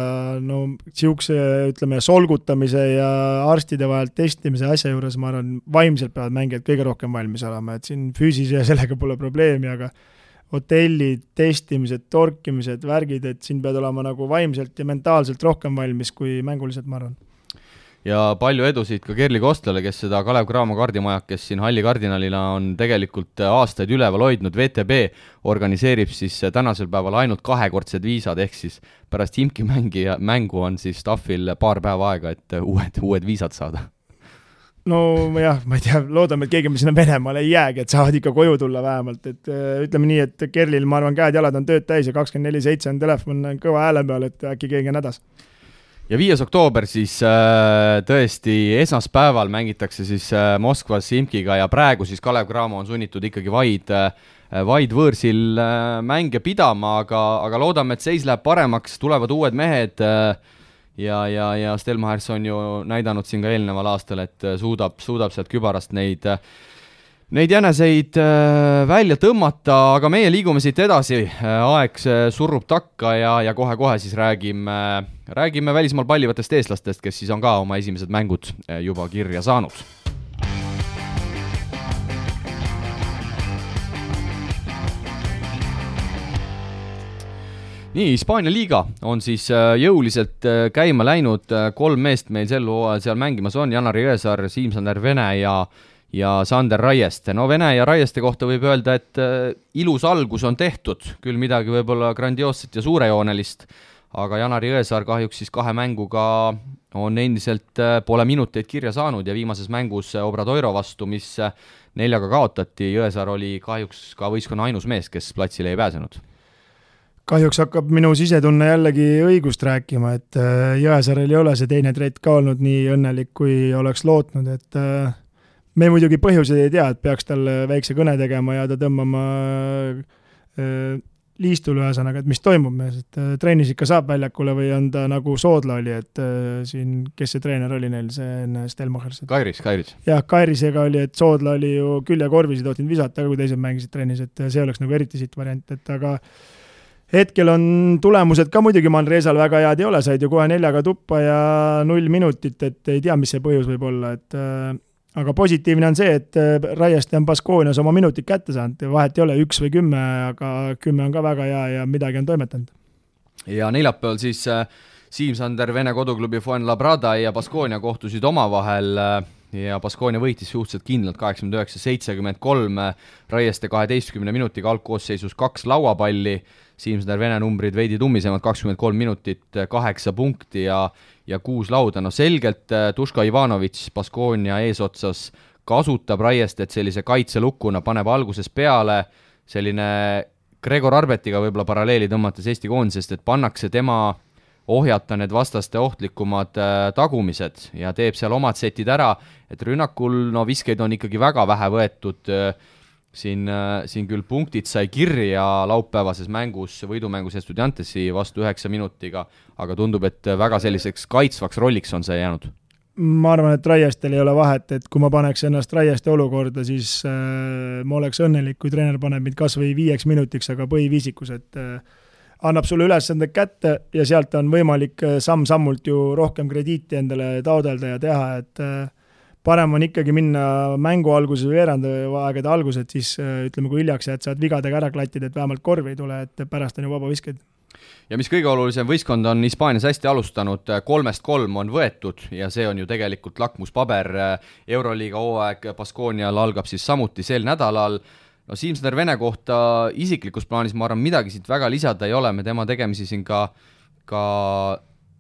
siukse, ütleme, solgutamise ja arstide vahel testimise asja juures, ma arvan, vaimselt peavad mängijad kõige rohkem valmis olema, et siin füüsise ja sellega pole probleemi, aga hotellid, testimised, torkimised, värgid, et siin pead olema nagu vaimselt ja mentaalselt rohkem valmis kui mänguliselt, ma arvan. Ja palju edusid ka Kerli Kostlale, kes seda Kalev Cramo kardimaja, kes siin Halli kardinalina on tegelikult aastaid üleval hoidnud. VTB organiseerib siis tänasel päeval ainult 2-kordsed viisad, ehk siis pärast Himki mängu on siis staffil paar päeva aega, et uued viisad saada. no jah, ma ei tea, loodame, et keegi me sinna Venemaale ei jäägi, et saavad ikka koju tulla vähemalt, et ütleme nii, et Kerlil, ma arvan, käed-jalad on tööd täis ja 24/7 on telefon kõva hääle peal, et äkki keegi on hädas. Ja 5. oktoober siis tõesti esmaspäeval mängitakse siis Moskvas Simkiga ja praegu siis Kalev Cramo on sunnitud ikkagi vaid võõrsil mänge pidama, aga loodame, et seis läheb paremaks, tulevad uued mehed ja Stelmachers on ju näidanud siin ka eelneval aastal, et suudab sealt kübarast neid jäneseid välja tõmmata, aga meie liigume siit edasi, aeg surrub takka ja kohe-kohe siis räägime välismaal pallivatest eestlastest, kes siis on ka oma esimesed mängud juba kirja saanud. Nii, Hispaania liiga on siis jõuliselt käima läinud, 3 meest meil sel hooajal seal mängimas on, Janar Jõesaar, Siim-Sander Vene ja Sander Raieste. No Vene ja Raieste kohta võib öelda, et ilus algus on tehtud, küll midagi võib-olla grandioosset ja suurejoonelist, aga Janar Jõesaar kahjuks siis 2 mänguga on endiselt pole minuteid kirja saanud ja viimases mängus Obradoiro vastu, mis 4-ga kaotati, Jõesaar oli kahjuks ka võistkonna ainus mees, kes platsile ei pääsenud. Kahjuks hakkab minu sisetunne jällegi õigust rääkima, et Jõesaarel ei ole see teine trett ka olnud nii õnnelik, kui oleks lootnud, et me muidugi põhjuseid ei tea, et peaks talle väikse kõne tegema ja ta tõmbama liistul ühesõnaga, et mis toimub mees, et treenis ikka saab väljakule või on ta nagu Soodla oli, et siin, kes see treener oli neil, see enne Stelmachers? Kairis. Jah, Kairisega oli, et Soodla oli ju küljekorvis ja tohtinud visata, kui teised mängisid treenis, et see oleks nagu eriti siit variant, et aga hetkel on tulemused ka muidugi Manresal väga head ei ole, said ju kohe 4-ga tuppa ja 0 minutit, et ei tea, mis see põhjus võib olla, et aga positiivne on see, et Raieste on Baskoonias oma minutit kätte saanud, vahet ei ole 1 või 10, aga 10 on ka väga hea ja midagi on toimetanud. Ja neljapäeval siis Siim-Sander Vene koduklubi Fuenlabrada ja Baskoonia kohtusid omavahel ja Baskoonia võitis suhteliselt kindlalt 89-73, Raieste 12 minutiga algkoosseisus 2 lauapalli, Siim-Sander Vene numbrid veidi tummisemad, 23 minutit, 8 punkti ja 6 lauda. No selgelt Duško Ivanović Baskoonia eesotsas kasutab Raiestet sellise kaitselukkuna, paneb alguses peale selline Gregor Arbetiga võib-olla paralleeli tõmmates Eesti koondisest, et pannakse tema ohjata need vastaste ohtlikumad tagumised ja teeb seal omad setid ära, et rünnakul viskeid on ikkagi väga vähe võetud, siin küll punktid sai kirja laupäevases mängus, võidumängus Estudiantesi vastu 9 minutiga, aga tundub, et väga selliseks kaitsvaks rolliks on see jäänud. Ma arvan, et Raiestel ei ole vahet, et kui ma paneks ennast Raieste olukorda, siis ma oleks õnnelik, kui treener paneb mind kas või 5 minutiks, aga põhiviisikus, et annab sulle ülesanded kätte ja sealt on võimalik samm-sammult ju rohkem krediiti endale taodelda ja teha, et parem on ikkagi minna mängu alguses või veerandaegade alguses, siis ütleme, kui hiljaks jääd, saad vigadega ära klattida, et vähemalt korvi ei tule, et pärast on ju vaba visked. Ja mis kõige olulisem, võistkond on Hispaanias hästi alustanud, 3-3 on võetud ja see on ju tegelikult lakmuspaber. Euroliiga hooaeg Baskoonial algab siis samuti sel nädalal. No Siim-Sander Vene kohta isiklikus plaanis ma arvan midagi siit väga lisada ei ole, me tema tegemisi siin ka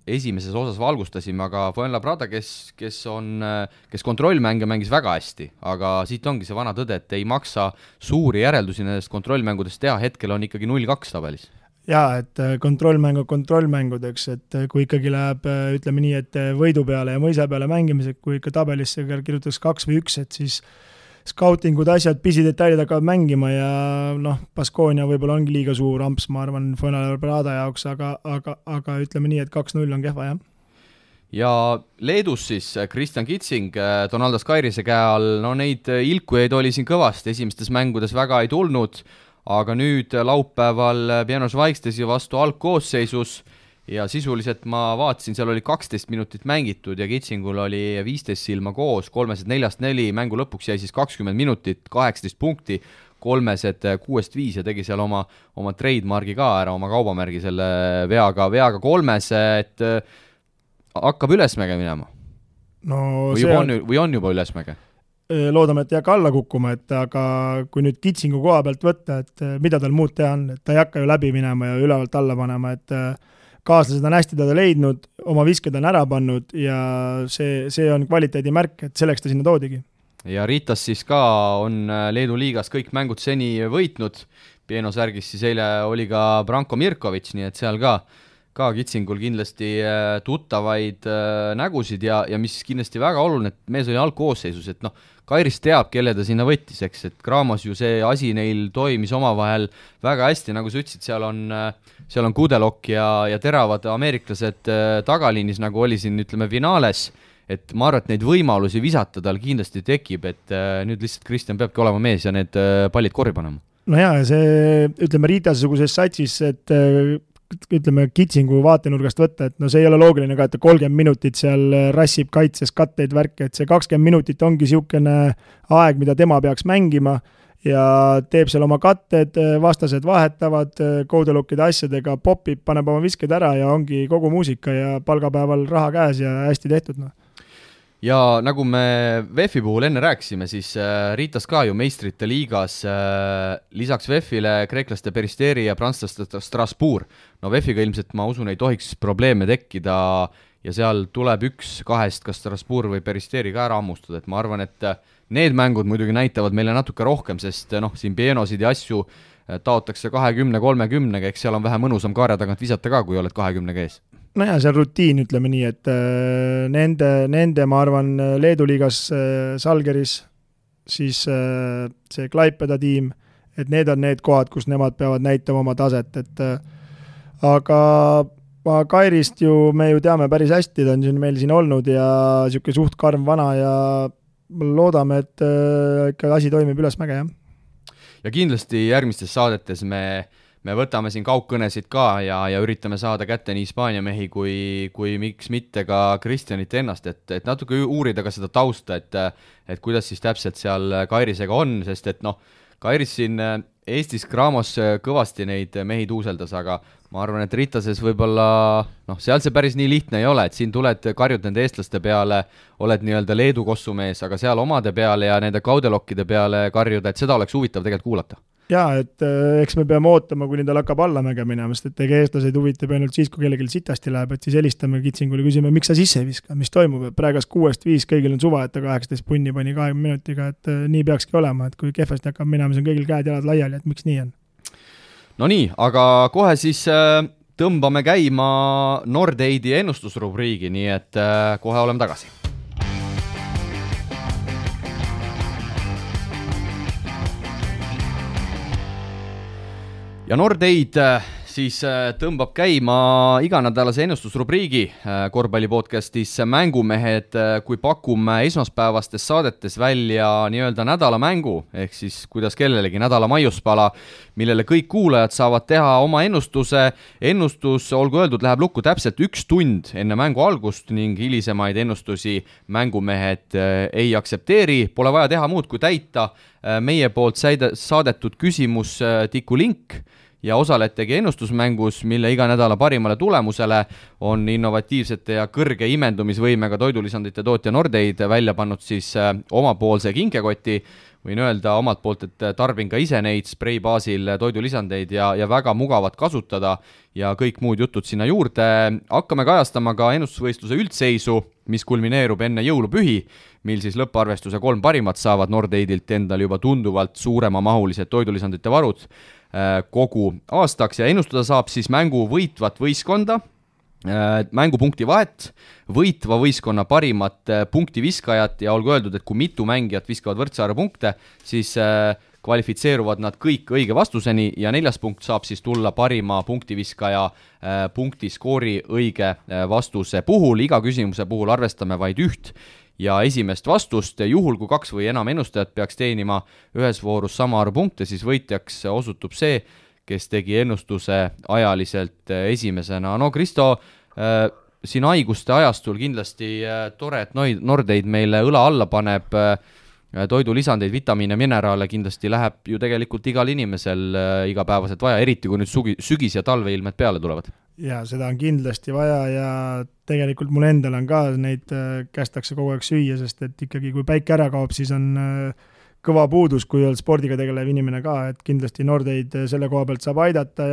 esimeses osas valgustasime, aga Fuenlabrada, kes kontrollmänge mängis väga hästi, aga siit ongi see vana tõde, et ei maksa suuri järeldusi nendest kontrollmängudest teha, hetkel on ikkagi 0-2 tabelis. Jaa, et kontrollmängudeks, et kui ikkagi läheb, ütleme nii, et võidu peale ja mõisa peale mängimised, kui ikka tabelisse kirjutaks 2 või 1, et siis skautingud, asjad, pisidetailid hakkavad mängima ja Baskoonia võib-olla ongi liiga suur amps, ma arvan, Fuenlabrada jaoks, aga ütleme nii, et 2-0 on kehva, jah. Ja Leedus siis Kristjan Kitsing, Donaldas Kairise käe all, neid ilkujaid oli siin kõvasti, esimestes mängudes väga ei tulnud, aga nüüd laupäeval Pianos Vaikstesi vastu algkoosseisus ja sisuliselt ma vaatasin, seal oli 12 minutit mängitud ja Kitsingul oli 15 silma koos, 3-4, mängu lõpuks jäi siis 20 minutit, 18 punkti, 3-6-5 ja tegi seal oma trademargi ka ära, oma kaubamärgi selle veaga 3, et hakkab ülesmäge minema. Või on juba ülesmäge? Loodame, et ei hakka alla kukkuma, et aga kui nüüd Kitsingu koha pealt võtta, et mida tal muud teha on, et ta ei hakka ju läbi minema ja ülevalt alla panema, et kaaslased on hästi teda leidnud, oma visked on ära pannud ja see on kvaliteedimärk, et selleks ta sinna toodigi. Ja Ritas siis ka on Leedu liigas kõik mängud seni võitnud, Pieno särgis siis eile oli ka Branko Mirkovic, nii et seal ka Kitsingul kindlasti tuttavaid nägusid ja mis kindlasti väga oluline, et mees oli algkoosseisus, et Kairis teab, kelle ta sinna võttis, eks, et Graamos ju see asi neil toimis omavahel väga hästi, nagu sa ütlesid, seal on Kudelok ja teravad ameeriklased tagaliinis, nagu oli siin, ütleme, finaales, et ma arvan, et neid võimalusi visata tal kindlasti tekib, et nüüd lihtsalt Kristjan peabki olema mees ja need pallid korri panema. No jaa, see, ütleme, Riitase-suguses satsis, et ütleme, Kitsingu vaatenurgast võtta, et see ei ole loogiline ka, et 30 minutit seal rassib kaitses katteid värke, et see 20 minutit ongi niisugune aeg, mida tema peaks mängima ja teeb seal oma katted, vastased vahetavad, Koudelokkide asjadega popib, paneb oma visked ära ja ongi kogu muusika ja palgapäeval raha käes ja hästi tehtud. Ja nagu me VEF-i puhul enne rääkisime, siis Ritas ka ju meistrite liigas lisaks VEF-ile kreeklaste Peristeri ja prantslaste Strasbourg. VEF-iga ilmselt ma usun ei tohiks probleeme tekkida ja seal tuleb üks kahest, kas Strasbourg või Peristeri ka ära ammustada, et ma arvan, et need mängud muidugi näitavad meile natuke rohkem, sest siin Pienosid ja asju taotakse 20-30, eks seal on vähe mõnusam kaarja tagant visata ka, kui oled 20 ees. Nojah, see on rutiin, ütleme nii, et nende ma arvan, Leedu liigas Salgeris, siis see Klaipeda tiim, et need on need kohad, kus nemad peavad näitama oma taset, et aga Kairist ju me ju teame päris hästi, ta on meil siin olnud ja niisugune suht karm vana ja loodame, et ikka asi toimib ülesmäge, jah. Ja kindlasti järgmistes saadetes me võtame siin kaugkõnesid ka ja üritame saada kätte nii Hispaania mehi kui miks mitte ka Kristjanit ennast, et natuke uurida ka seda tausta, et kuidas siis täpselt seal Kairisega on, sest et Kairis siin Eestis Graamos kõvasti neid mehi tuuseldas, aga ma arvan, et Ritases võib-olla, seal see päris nii lihtne ei ole, et siin tuled, karjud nende eestlaste peale, oled nii-öelda Leedu kossumees, aga seal omade peale ja nende Koudelokkide peale karjuda, et seda oleks huvitav tegelikult kuulata. Jaa, et eks me peame ootama, kuni tal hakkab allamäge minema, sest et eestlaseid huvitab ainult siis, kui kellelgi sitasti läheb, et siis helistame Kitsingule, küsime, miks sa sisse ei viska, mis toimub, et praegas 6-5, kõigil on suva, et ta 18 punni pani 20 minutiga, et nii peakski olema, et kui kehvasti hakkab minema, siis on kõigil käed-jalad laiali, et miks nii on. No nii, aga kohe siis tõmbame käima Nordeidi ennustusrubriigi, nii et kohe oleme tagasi. Ja Nordeid siis tõmbab käima iganädalase ennustusrubriigi korvpallipodcastis Mängumehed, kui pakume esmaspäevastes saadetes välja nii-öelda nädalamängu, ehk siis kuidas kellelegi nädala maiuspala, millele kõik kuulajad saavad teha oma ennustuse. Ennustus, olgu öeldud, läheb lukku täpselt 1 tund enne mängu algust ning hilisemaid ennustusi Mängumehed ei aktsepteeri. Pole vaja teha muud kui täita meie poolt saadetud küsimus tiku link ja osaletegi ennustusmängus, mille iga nädala parimale tulemusele on innovatiivsete ja kõrge imendumisvõimega toidulisandite tootja Nordeid välja pannud siis omapoolse kinkekoti. Võin öelda omalt poolt, et tarbin ka ise neid sprei baasil toidulisandeid ja väga mugavad kasutada ja kõik muud jutud sinna juurde. Hakkame kajastama ka ennustusvõistluse üldseisu, mis kulmineerub enne jõulupühi, mil siis lõpparvestuse 3 parimat saavad Nordeidilt endal juba tunduvalt suurema mahulised toidulisandite varud kogu aastaks ja ennustada saab siis mängu võitvat võistkonda, mängupunkti vahet, võitva võistkonna parimat punktiviskajat ja olgu öeldud, et kui mitu mängijat viskavad võrdse arvu punkte, siis kvalifitseeruvad nad kõik õige vastuseni ja 4. punkt saab siis tulla parima punktiviskaja punktiskoori õige vastuse puhul. Iga küsimuse puhul arvestame vaid 1 ja esimest vastust. Juhul, kui 2 või enam ennustajat peaks teenima ühes voorus sama arvu punkte, siis võitjaks osutub see, kes tegi ennustuse ajaliselt esimesena. No Kristo, siin haiguste ajastul kindlasti tore, et Nordeid meile õla alla paneb, toidulisandeid, vitamiine, mineraale kindlasti läheb ju tegelikult igal inimesel igapäevaselt vaja, eriti kui nüüd sügis ja talveilmed peale tulevad. Ja seda on kindlasti vaja ja tegelikult mul endal on ka neid kästakse kogu aeg süüa, sest et ikkagi kui päike ära kaob, siis on kõva puudus, kui on spordiga tegelev inimene ka, et kindlasti Nordeid selle koha pealt saab aidata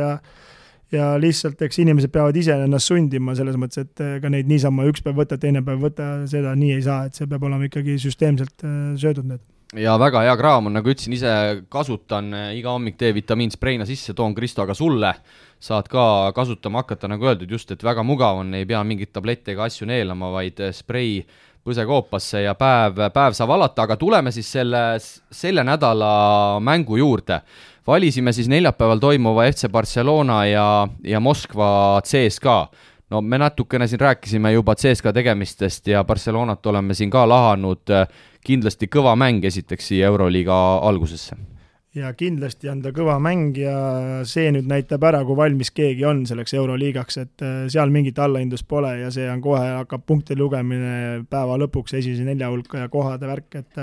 ja lihtsalt eks inimesed peavad ise ennast sundima selles mõttes, et ka neid niisama üks päev võtta, teine päev võtta, seda nii ei saa, et see peab olema ikkagi süsteemselt söödud need. Ja väga hea kraam on, nagu ütlesin, ise kasutan iga hommik D-vitamiin spreina sisse, toon Kristo aga sulle, saad ka kasutama hakata, nagu öeldud, just, et väga mugav on, ei pea mingit tablette ega asju neelama, vaid sprei põsekoopasse ja päev saab alata, aga tuleme siis selle nädala mängu juurde. Valisime siis neljapäeval toimuva FC Barcelona ja Moskva CSKA. No me natukene siin rääkisime juba CSKA tegemistest ja Barcelonat oleme siin ka lahanud, kindlasti kõva mäng esiteks siia Euroliiga algusesse. Ja kindlasti on ta kõva mäng ja see nüüd näitab ära, kui valmis keegi on selleks Euroliigaks, et seal mingit allahindlust pole ja see on kohe hakkab punkti lugemine päeva lõpuks esimese 4 hulka ja kohade värk, et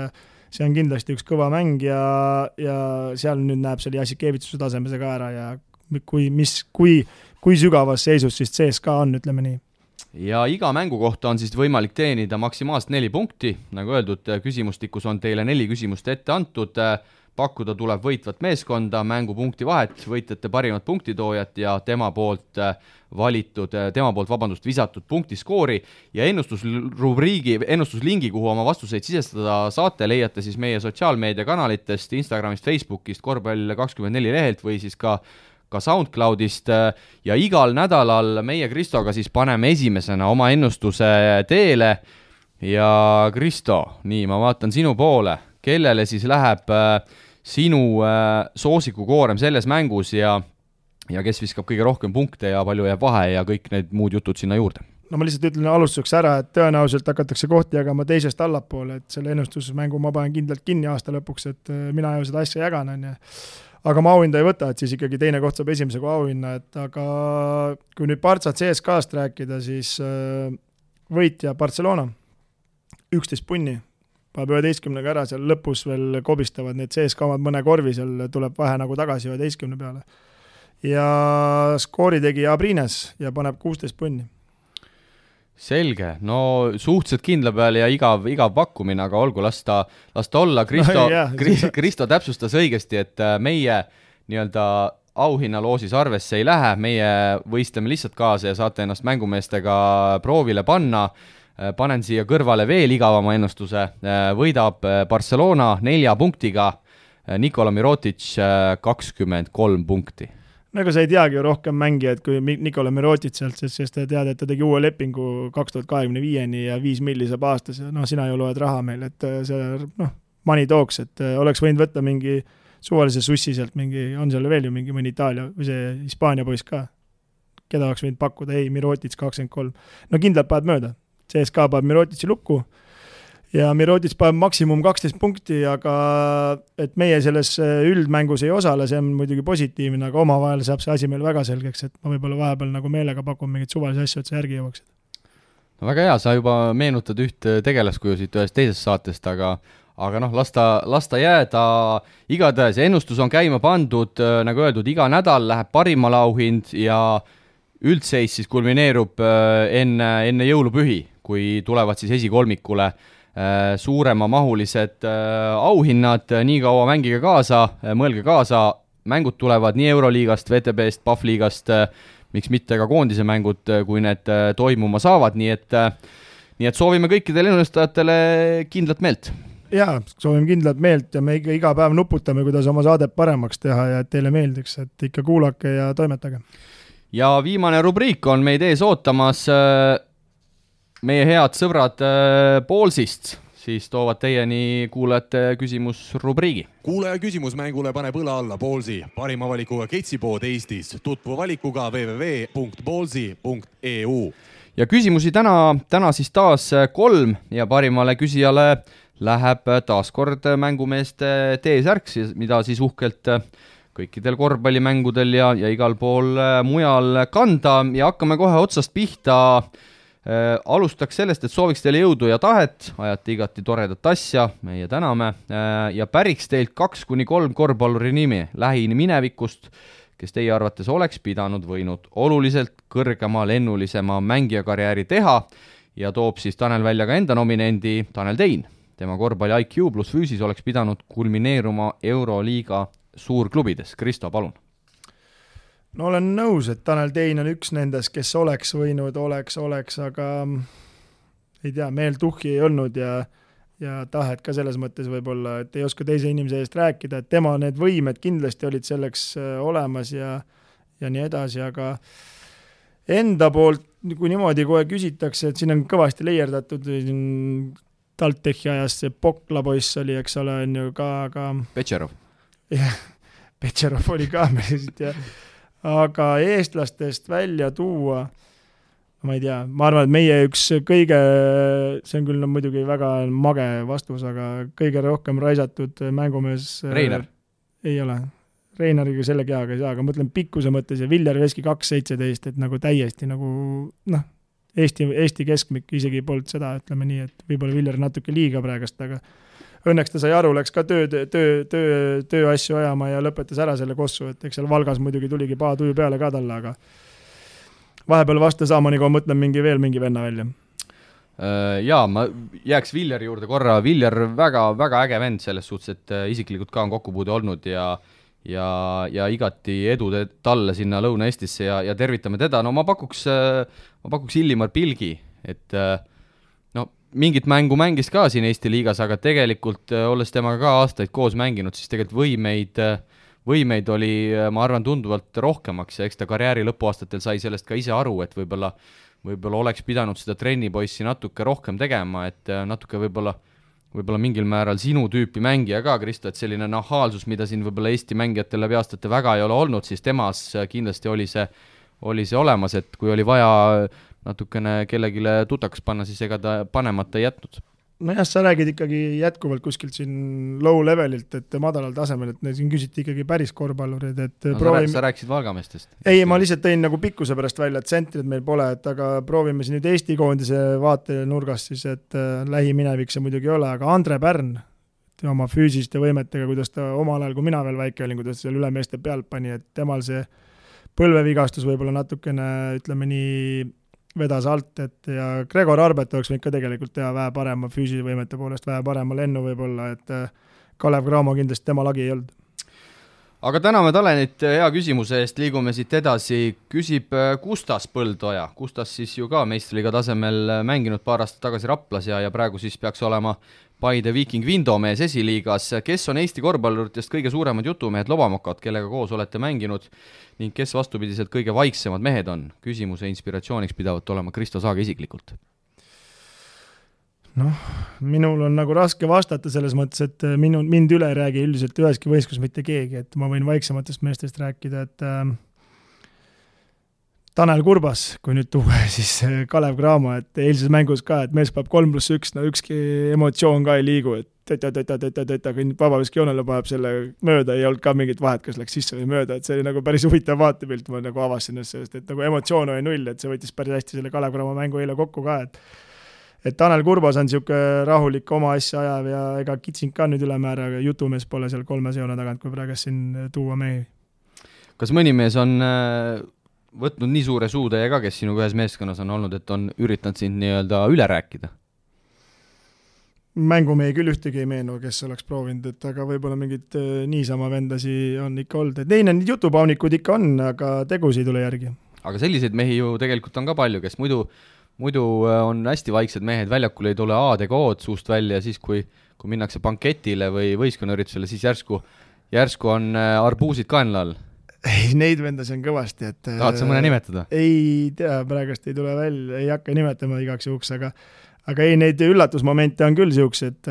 see on kindlasti üks kõva mäng ja seal nüüd näeb selle Jassikevitsuse tasemese ka ära ja kui sügavas seisus siis CSKA on, ütleme nii. Ja iga mängu kohta on siis võimalik teenida maksimaalselt 4 punkti, nagu öeldud, küsimustikus on teile 4 küsimust ette antud, pakkuda tuleb võitvat meeskonda, mängupunkti vahet, võitjate parimat punktitoojat ja tema poolt visatud punktiskoori ja ennustuslingi, kuhu oma vastuseid sisestada saate, leiate siis meie sotsiaalmeediakanalitest, Instagramist, Facebookist, Korvpall24 lehelt või siis ka SoundCloudist ja igal nädalal meie Kristoga siis paneme esimesena oma ennustuse teele ja Kristo, nii, ma vaatan sinu poole, kellele siis läheb sinu soosikukoorem selles mängus ja kes viskab kõige rohkem punkte ja palju jääb vahe ja kõik need muud jutud sinna juurde. No ma lihtsalt ütlen alustuseks ära, et tõenäoliselt hakatakse kohti jagama teisest allapoole, et selle ennustusmängu ma panen kindlalt kinni aasta lõpuks, et mina ju seda asja jagan, on ja. Aga ma auhinda ei võta, et siis ikkagi teine koht saab esimese kui auhinna, et aga kui nüüd Barca CSKA-st rääkida, siis võitja Barcelona 11 punni, paneb 11 ära, seal lõpus veel kobistavad need CSKA omad mõne korvi, seal tuleb vahe nagu tagasi 11 peale. Ja skoori tegi Abrines ja paneb 16 punni. Selge, no suhteliselt kindla peal ja igav pakkumine, aga olgu, lasta olla. Kristo täpsustas õigesti, et meie nii-öelda auhinnaloosis arvesse ei lähe, meie võistleme lihtsalt kaasa ja saate ennast mängumeestega proovile panna. Panen siia kõrvale veel igavama ennustuse, võidab Barcelona 4 punktiga, Nikola Mirotic 23 punkti. No ega sa ei teagi ju rohkem mängijad kui Nikola Mirotic sealt, sest ta tead, et ta tegi uue lepingu 2025-ni ja 5 milli saab aastas ja sina ju loed raha meil, et see money talks, et oleks võinud võtta mingi suvalise sussi sealt, on seal veel ju mõni Itaalia või see Hispaania poiss ka, keda oleks võinud pakkuda, ei, Mirotic 23. No kindlalt paned mööda, CSKA paneb Mirotici lukku ja Mirotic paneb maksimum 12 punkti, aga et meie selles üldmängus ei osale, see on muidugi positiivne, aga omavahel saab see asi meil väga selgeks, et ma võib-olla vahepeal nagu meelega pakun mingit suvalisi asju, et see järgi jõuaksid. No väga hea, sa juba meenutad üht tegelaskujusid ühest teisest saatest, aga lasta jääda. Igatahes ennustus on käima pandud, nagu öeldud, iga nädal läheb parimale auhind ja üldseis siis kulmineerub enne jõulupühi, kui tulevad siis esikolmikule suurema mahulised auhinnad, nii kaua mängige kaasa, mõelge kaasa, mängud tulevad nii Euroliigast, VTB-st, PAF-liigast, miks mitte ka koondise mängud, kui need toimuma saavad, nii et soovime kõikidele ennustajatele kindlat meelt. Jaa, soovime kindlat meelt ja me iga päev nuputame, kuidas oma saadet paremaks teha ja et teile meeldiks, et ikka kuulake ja toimetage. Ja viimane rubriik on meid ees ootamas meie head sõbrad Ballsist, siis toovad teieni kuulajate küsimusrubriigi. Kuulaja küsimus mängule paneb õla alla Ballsi, parima valikuga ketsipood Eestis, tutvu valikuga www.ballsi.eu. Ja küsimusi täna siis taas 3 ja parimale küsijale läheb taaskord mängumeeste T-särk, mida siis uhkelt kõikidel korvpallimängudel ja igal pool mujal kanda ja hakkame kohe otsast pihta. Alustaks sellest, et sooviks teile jõudu ja tahet, ajate igati toredat asja, meie täname ja päriks teilt 2-3 korvpalluri nimi lähiminevikust, kes teie arvates oleks pidanud võinud oluliselt kõrgema lennulisema mängijakarjääri teha ja toob siis Tanel välja ka enda nominendi Tanel Tein. Tema korvpalli IQ plus füüsis oleks pidanud kulmineeruma Euroliiga suurklubides. Kristo, palun. no olen nõus, et Tanel Tein on üks nendest, kes oleks võinud, aga ei tea, meel tuhhi ei olnud ja tahet ka selles mõttes võib-olla, et ei oska teise inimese eest rääkida, et tema need võimed kindlasti olid selleks olemas ja nii edasi, aga enda poolt, kui niimoodi kohe küsitakse, et siin on kõvasti leierdatud, TalTechi ajas see Pokla poiss oli, eks ole, on ju ka Petšerov. Jah, Petšerov oli ka meelest, aga eestlastest välja tuua, ma ei tea, ma arvan, et meie üks kõige, see on küll muidugi väga mage vastus, aga kõige rohkem raisatud mängumees Reiner. Ei ole. Reinariga selle keaga ei saa, aga mõtlen pikkuse mõttes ja Viljar Veski 2.17, et nagu täiesti nagu, Eesti keskmik isegi polnud seda, ütleme nii, et võib-olla Viljar natuke liiga praegast, aga õnneks ta sai aru, läks ka töö asju ajama ja lõpetas ära selle kossu, et eks seal Valgas muidugi tuligi tuju peale ka talle, aga vahepeal vasta saama, nagu mõtlen mingi venna välja. Jaa, ma jääks Viljari juurde korra. Viljar väga, väga äge vend selles suhtes, et isiklikult ka on kokkupuude olnud ja igati edu talle sinna Lõuna-Eestisse ja tervitame teda. No ma pakuks Illimar Pilgi, et mingit mängu mängis ka siin Eesti liigas, aga tegelikult olles temaga ka aastaid koos mänginud, siis tegelikult võimeid oli, ma arvan, tunduvalt rohkemaks ja eks ta karjääri lõpuaastatel sai sellest ka ise aru, et võib-olla oleks pidanud seda trennipoissi natuke rohkem tegema, et natuke võib-olla mingil määral sinu tüüpi mängija ka, Kristo, et selline nahaalsus, mida siin võib-olla Eesti mängijatel läbi aastate väga ei ole olnud, siis temas kindlasti oli see olemas, et kui oli vaja natukene kellegile tutaks panna, siis ega ta panemata ei jätnud. Nojah, sa räägid ikkagi jätkuvalt kuskilt siin low levelilt, et madalal tasemel, et siin küsiti ikkagi päris korvpallurid, et sa rääkisid Valgameestest? Ei, ma lihtsalt tõin nagu pikkuse pärast välja, et sentrid meil pole, et aga proovime siin nüüd Eesti koondise vaatenurgast siis, et lähiminevik see muidugi ei ole, aga Andre Pärn oma füüsiliste võimetega, kuidas ta omal ajal, kui mina veel väike olin, kuidas seal ülemeeste pealt pani, et temal see põlvevigastus võib-olla natukene, ütleme nii, vedas alt, et ja Gregor Arbet oleks võinud ka tegelikult teha vähe parema füüsilise võimete poolest, vähe parema lennu võib-olla, et Kalev Cramo kindlasti tema lagi ei olnud. Aga täname Talenit hea küsimuse eest, liigume siit edasi, küsib Kustas Põldoja. Kustas siis ju ka meistriliiga tasemel mänginud paar aastat tagasi Raplas ja praegu siis peaks olema Paide Viking Vindomees esiliigas. Kes on Eesti korvpalluritest kõige suuremad jutumehed lobamokad, kellega koos olete mänginud ning kes vastupidiselt kõige vaiksemad mehed on? Küsimuse inspiratsiooniks pidavat olema Kristo Saage isiklikult. Minul on nagu raske vastata selles mõttes, et mind üle ei räägi üldiselt üheski võistlus mitte keegi, et ma võin vaiksematest meestest rääkida, et Tanel Kurbas, kui nüüd tuua, siis Kalev Cramo, et eilses mängus ka, et mees peab 3+1, ükski emotsioon ka ei liigu, et kui vabaviskijoonele paneb selle mööda, ei olnud ka mingit vahet, kas läks sisse või mööda, et see oli nagu päris huvitav vaatepilt, ma nagu avasin sellest, et nagu emotsioon oli null, et see võttis päris hästi selle Kalev Cramo mängu eile kokku ka, et Tanel Kurbas on niisugune rahulik oma asja ajav ja ega Kitsing ka nüüd ülemäära, aga jutumees pole seal 3 joone tagant, kui praegu siin tuua mehi. Kas mõni mees on võtnud nii suure suutäie ka, kes sinuga ühes meeskonnas on olnud, et on üritanud sind nii-öelda üle rääkida? Mängumehi küll ühtegi ei meenu, kes oleks proovinud, et aga võib-olla mingid niisama vendasi on ikka olnud. Et neil on jutupaunikud ikka on, aga tegusid ei tule järgi. Aga selliseid mehi ju tegelikult on ka palju, kes muidu on hästi vaiksed mehed, väljakul ei tule ADK-d suust välja ja siis, kui minnakse banketile või võistkonnüritusele, siis järsku on arbuusid kaenla all. Ei, neid vendasi on kõvasti, et tahad sa mõne nimetada? Ei tea, praegust ei tule välja, ei hakka nimetama igaks juhuks, aga ei, neid üllatusmomente on küll siuks, et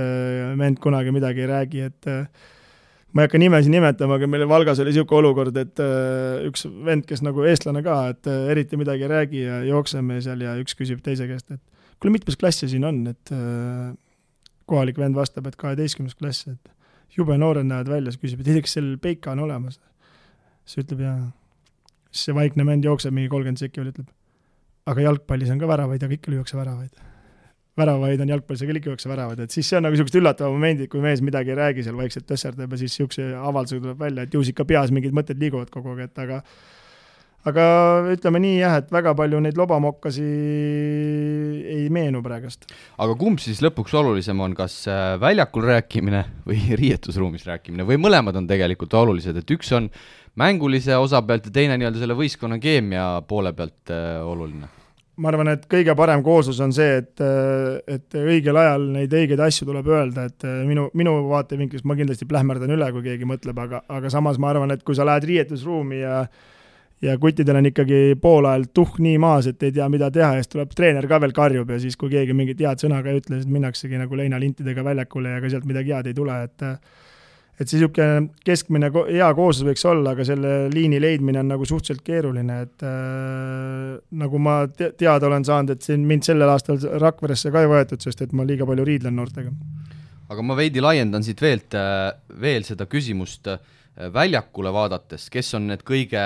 vend kunagi midagi ei räägi, et ma ei hakka nimesi nimetama, aga meil Valgas oli siuke olukord, et üks vend, kes nagu eestlane ka, et eriti midagi ei räägi ja jookseme seal ja üks küsib teise käest, et kuule, mitmes klassi siin on, et kohalik vend vastab, et 12. klass, et jube noored näevad välja, siis küsib, et kas seal peika on olemas. See ütleb ja see vaikne vend jookseb mingi 30 sekki veel, ütleb, aga jalgpallis on ka väravaid, aga ikka lüüakse väravaid. Väravaid on jalgpallis, aga ikka lüüakse väravaid, et siis see on nagu sellised üllatavad momendid, kui mees midagi ei räägi, seal vaikselt tõsserdab ja siis siukse avaldusega tuleb välja, et juus ikka peas mingid mõtted liiguvad kogu aeg, et aga ütleme nii jah, et väga palju neid lobamokkasi ei meenu praegust. Aga kumb siis lõpuks olulisem on, kas väljakul rääkimine või riietusruumis rääkimine või mõlemad on tegelikult olulised, et üks on mängulise osa pealt ja teine nii-öelda selle võistkonna keemia poole pealt oluline? Ma arvan, et kõige parem kooslus on see, et õigel ajal neid õigeid asju tuleb öelda, et minu vaatevinklist ma kindlasti plähmerdan üle, kui keegi mõtleb, aga samas ma arvan, et kui sa lähed riietusruumi ja kuttidel on ikkagi pool ajal nii maas, et ei tea, mida teha, ja siis tuleb treener ka veel karjub ja siis, kui keegi mingit head sõna ka ei ütle, siis minnaksegi nagu leinalintidega väljakule ja ka sealt midagi head ei tule, et siis niisugune keskmine hea kooslus võiks olla, aga selle liini leidmine on nagu suhteliselt keeruline, et nagu ma teada olen saanud, et siin mind sellel aastal Rakveresse ka ei võetud, sest et ma liiga palju riidlen noortega. Aga ma veidi laiendan siit veel seda küsimust väljakule vaadates, kes on need kõige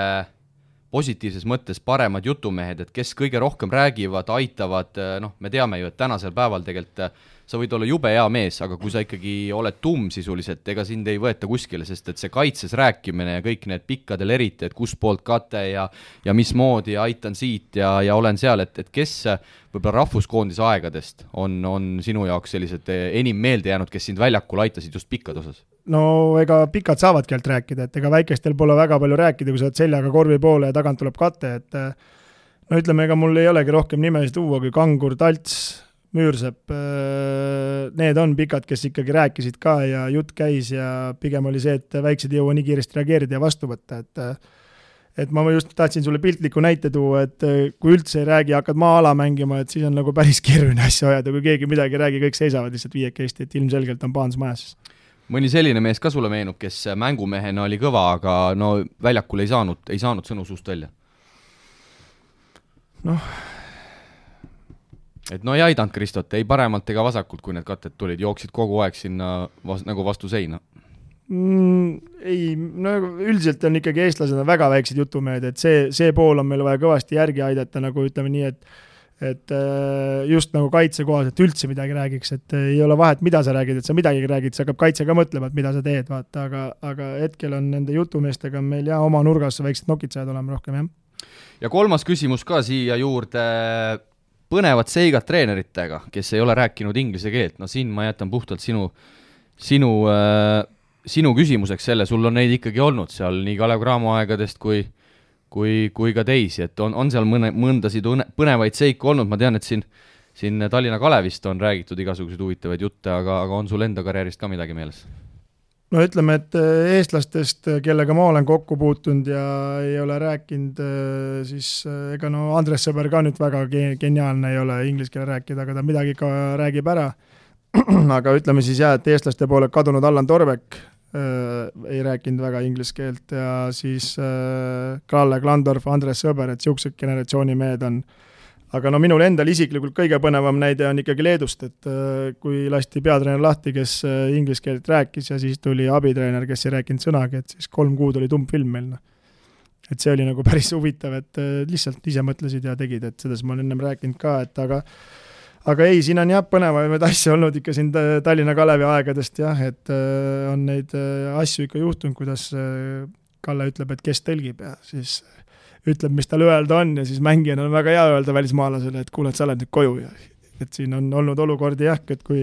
positiivses mõttes paremad jutumehed, et kes kõige rohkem räägivad, aitavad, me teame ju, et tänasel päeval tegelikult sa võid olla jube hea mees, aga kui sa ikkagi oled sisuliselt, ega sind ei võeta kuskile, sest et see kaitses rääkimine ja kõik need pikkadel eriti, et kus poolt kate ja mismoodi ja aitan siit ja olen seal, et kes võib-olla rahvuskoondise aegadest on sinu jaoks sellised enim meelde jäänud, kes sind väljakul aitasid just pikkad osas? No ega pikad saavadki alt rääkida, et ega väikestel pole väga palju rääkida, kui sa oled seljaga korvi poole ja tagant tuleb kate, et no ütleme, ega mul ei olegi rohkem nimesid tuua kui Kangur, Talts, Müürsepp, need on pikad, kes ikkagi rääkisid ka ja jutt käis ja pigem oli see, et väiksed ei jõua nii kiiresti reageerida ja vastu võtta, et ma just tahtsin sulle piltliku näite tuua, et kui üldse ei räägi, hakkad maa-ala mängima, et siis on nagu päris keeruline asja ajada, kui keegi midagi räägi, kõik seisavad lihtsalt viiekesti, et ilmselgelt on paans majas. Mõni selline mees ka sulle meenub, kes mängumehena oli kõva, aga no väljakul ei saanud sõnu suust välja? Et no ei aidanud Kristot, ei paremalt ega vasakult, kui need katet tulid, jooksid kogu aeg sinna nagu vastu seina. Ei, no üldiselt on ikkagi eestlased on väga väiksed jutumehed, et see pool on meil vaja kõvasti järgi aidata, nagu ütleme nii, et just nagu kaitsekohas, et üldse midagi räägiks, et ei ole vahet, mida sa räägid, et sa midagi räägid, see hakkab kaitse ka mõtlema, et mida sa teed, vaata, aga hetkel on nende jutumeestega meil oma nurgas väiksed nokitsajad olema rohkem, jah. Ja kolmas küsimus ka siia juurde, põnevad seigad treeneritega, kes ei ole rääkinud inglise keelt, no siin ma jätan puhtalt sinu küsimuseks selle, sul on neid ikkagi olnud seal nii Kalev Cramo aegadest kui ka teisi, et on seal mõndasid põnevaid seiku olnud, ma tean, et siin Tallinna Kalevist on räägitud igasuguseid huvitavaid jutte, aga on sul enda karjäärist ka midagi meeles? No ütleme, et eestlastest, kellega ma olen kokku puutunud ja ei ole rääkinud, siis ega no Andres Sõber ka nüüd väga geniaalne ei ole inglise keele rääkida, aga ta midagi ka räägib ära. Aga ütleme siis jah, et eestlaste poole kadunud Allan Torvek ei rääkinud väga inglise keelt ja siis Kalle Klandorf, Andres Sõber, et siuksed generatsiooni mehed on. Aga no minul endal isiklikult kõige põnevam näide on ikkagi Leedust, et kui lasti peatreener lahti, kes inglise keelt rääkis ja siis tuli abitreener, kes ei rääkinud sõnagi, et siis 3 kuud oli tummfilm meil. Et see oli nagu päris huvitav, et lihtsalt ise mõtlesid ja tegid, et selles ma olen ennem rääkinud ka, et aga ei, siin on jah põnevaid asju olnud ikka siin Tallinna Kalevi aegadest jah, et on neid asju ikka juhtunud, kuidas Kalle ütleb, et kes tõlgib ja siis ütleb, mis tal öelda on ja siis mängijana on väga hea öelda välismaalasele, et kuule, et sa oled nüüd koju ja et siin on olnud olukordi jah, et kui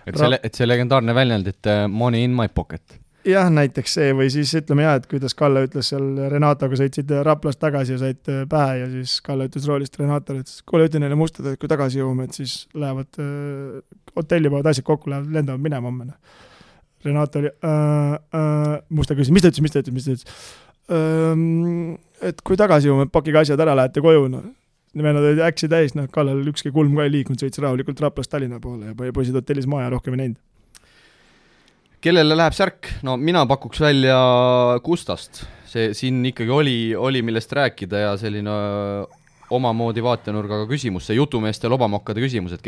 see legendaarne väljend, et money in my pocket. Jah, näiteks see või siis ütleme jah, et kuidas Kalle ütles seal Renatoga sõitsid Raplast tagasi ja said pähe ja siis Kalle ütles roolist Renatole, et kuule, ütle neile mustad, et kui tagasi jõuame, et siis lähevad hotelli pood asjad kokku, lendavad minema homme. Renato oli musta küsis, mis ta ütles? Et kui tagasi jõuame, pakige asjad ära, lähete koju, Nimenood olid äksi täis, Kallel ükski kulm ka ei liikunud, sõits rahulikult Raplast Tallinna poole ja poisid hotellis maja rohkem ei näinud. Kellele läheb särk? No mina pakuks välja Gustast. See siin ikkagi oli millest rääkida ja selline omamoodi vaatenurgaga küsimus, see jutumeeste lobamokkade küsimus, et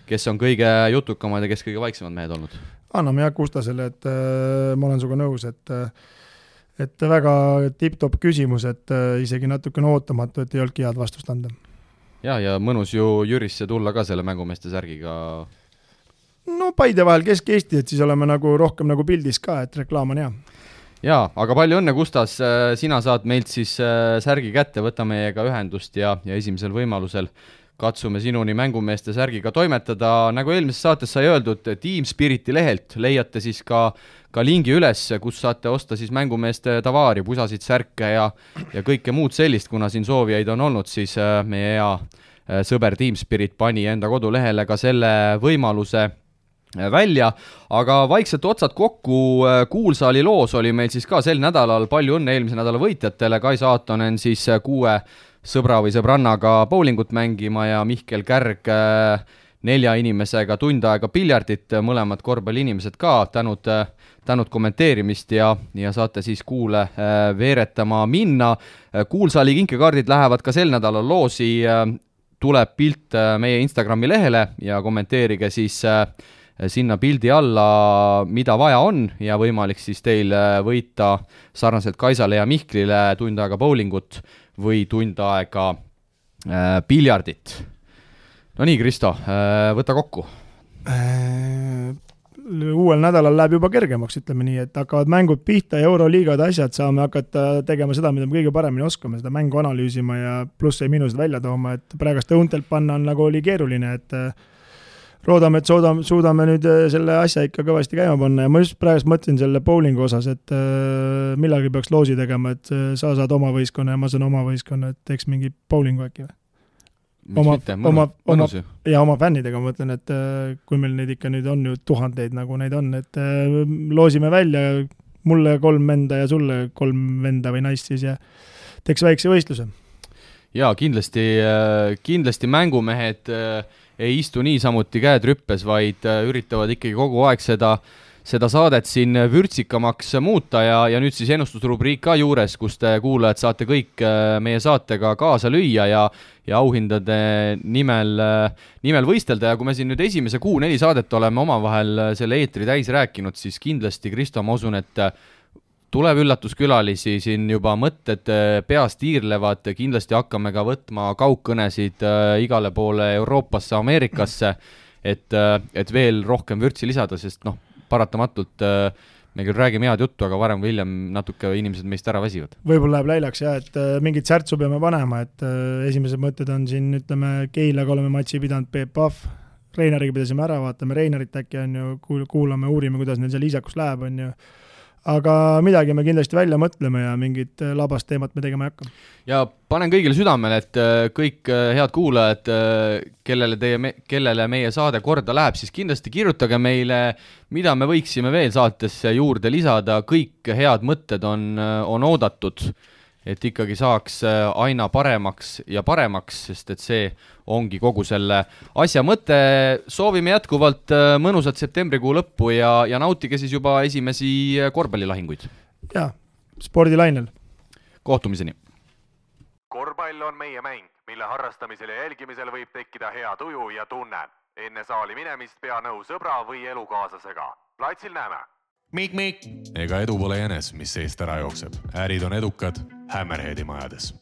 kes on kõige jutukamad ja kes kõige vaiksemad mehed olnud? Anname jah Gustasele, et ma olen suga nõus, et väga tipp-top küsimus, et isegi natukene ootamatu, et ei olnudki head vastust anda. Ja mõnus ju Jürisse tulla ka selle mängumeeste särgiga. No Paide vahel Kesk-Eesti, et siis oleme nagu rohkem nagu pildis ka, et reklaam on hea. Jaa, aga palju õnne, Gustas, sina saad meilt siis särgi kätte, võta meiega ühendust ja esimesel võimalusel katsume sinuni mängumeeste särgiga toimetada. Nagu eelmises saates sai öeldud, Team Spiriti lehelt leiate siis ka lingi üles, kus saate osta siis mängumeeste tavaari, pusasid, särke ja kõike muud sellist, kuna siin soovijaid on olnud, siis meie hea sõber Team Spirit pani enda kodulehele ka selle võimaluse välja, aga vaikselt otsad kokku, Kuulsaali loos oli meil siis ka sel nädalal, palju õnne eelmise nädala võitjatele, Kai Saatonen siis 6 sõbra või sõbrannaga bowlingut mängima ja Mihkel Kärg 4 inimesega tund aega piljardit, mõlemad korvpalliinimesed ka, tänud kommenteerimist ja saate siis Kuule veeretama minna. Kuulsaali kinkekaardid lähevad ka sel nädalal loosi, tuleb pilt meie Instagrami lehele ja kommenteerige siis sinna pildi alla, mida vaja on ja võimalik siis teil võita sarnaselt Kaisale ja Mihklile tund aega bowlingut või tund aega piljardit. No nii, Kristo, võta kokku. Uuel nädalal läheb juba kergemaks, ütleme nii, et hakkavad mängud pihta ja Euroliigade asjad, saame hakata tegema seda, mida me kõige paremini oskame, seda mängu analüüsima ja plusse ja miinused välja tooma, et praegust õuntelt panna on nagu oli keeruline, et roodame, et suudame nüüd selle asja ikka kõvasti käima panna ja ma just praegust mõtlen selle bowlingu osas, et millalgi peaks loosi tegema, et sa saad oma võistkonna ja ma saan oma võistkonna, et teeks mingi bowlingu äkki või? Oma fännidega ma mõtlen, et kui meil neid ikka nüüd on ju tuhandeid, nagu neid on, et loosime välja mulle 3 venda ja sulle 3 venda või naist siis ja teeks väikse võistluse. Jaa, kindlasti mängumehed ei istu niisamuti käed rüppes, vaid üritavad ikkagi kogu aeg seda saadet siin vürtsikamaks muuta ja nüüd siis ennustusrubriik ka juures, kus te kuulajad saate kõik meie saatega kaasa lüüa ja auhindade nimel võistelda ja kui me siin nüüd esimese 4 saadet oleme omavahel selle eetri täis rääkinud, siis kindlasti, Kristo, ma usun, et tuleb üllatuskülalisi, siin juba mõtted peast iirlevad, kindlasti hakkame ka võtma kaugkõnesid igale poole Euroopasse, Ameerikasse, et veel rohkem vürtsi lisada, sest paratamatult me küll räägime head juttu, aga varem või hiljem natuke inimesed meist ära väsivad. Võib-olla läheb läilaks et mingit särtsu peame panema, et esimesed mõtted on siin, ütleme, Keilaga oleme matši pidanud, Peep Pahv, Reinariga pidasime ära, vaatame Reinarit äkki on ju, kuulame, uurime, kuidas neil seal isakus läheb, on ju. Aga midagi me kindlasti välja mõtleme ja mingit labast teemat me tegema ei hakka. Ja panen kõigile südamele, et kõik head kuulajad, kellele meie saade korda läheb, siis kindlasti kirjutage meile, mida me võiksime veel saatesse juurde lisada, kõik head mõtted on oodatud, et ikkagi saaks aina paremaks ja paremaks, sest et see ongi kogu selle asja mõte. Soovime jätkuvalt mõnusat septembrikuu lõppu ja nautige siis juba esimesi korvpallilahinguid. Ja, spordilainel. Kohtumiseni. Korvpall on meie mäng, mille harrastamisel ja jälgimisel võib tekkida hea tuju ja tunne. Enne saali minemist pea nõu sõbra või elukaaslasega. Platsil näeme. Mik. Ega edu pole jänes, mis seest ära jookseb. Ärid on edukad Hammerheadi majades.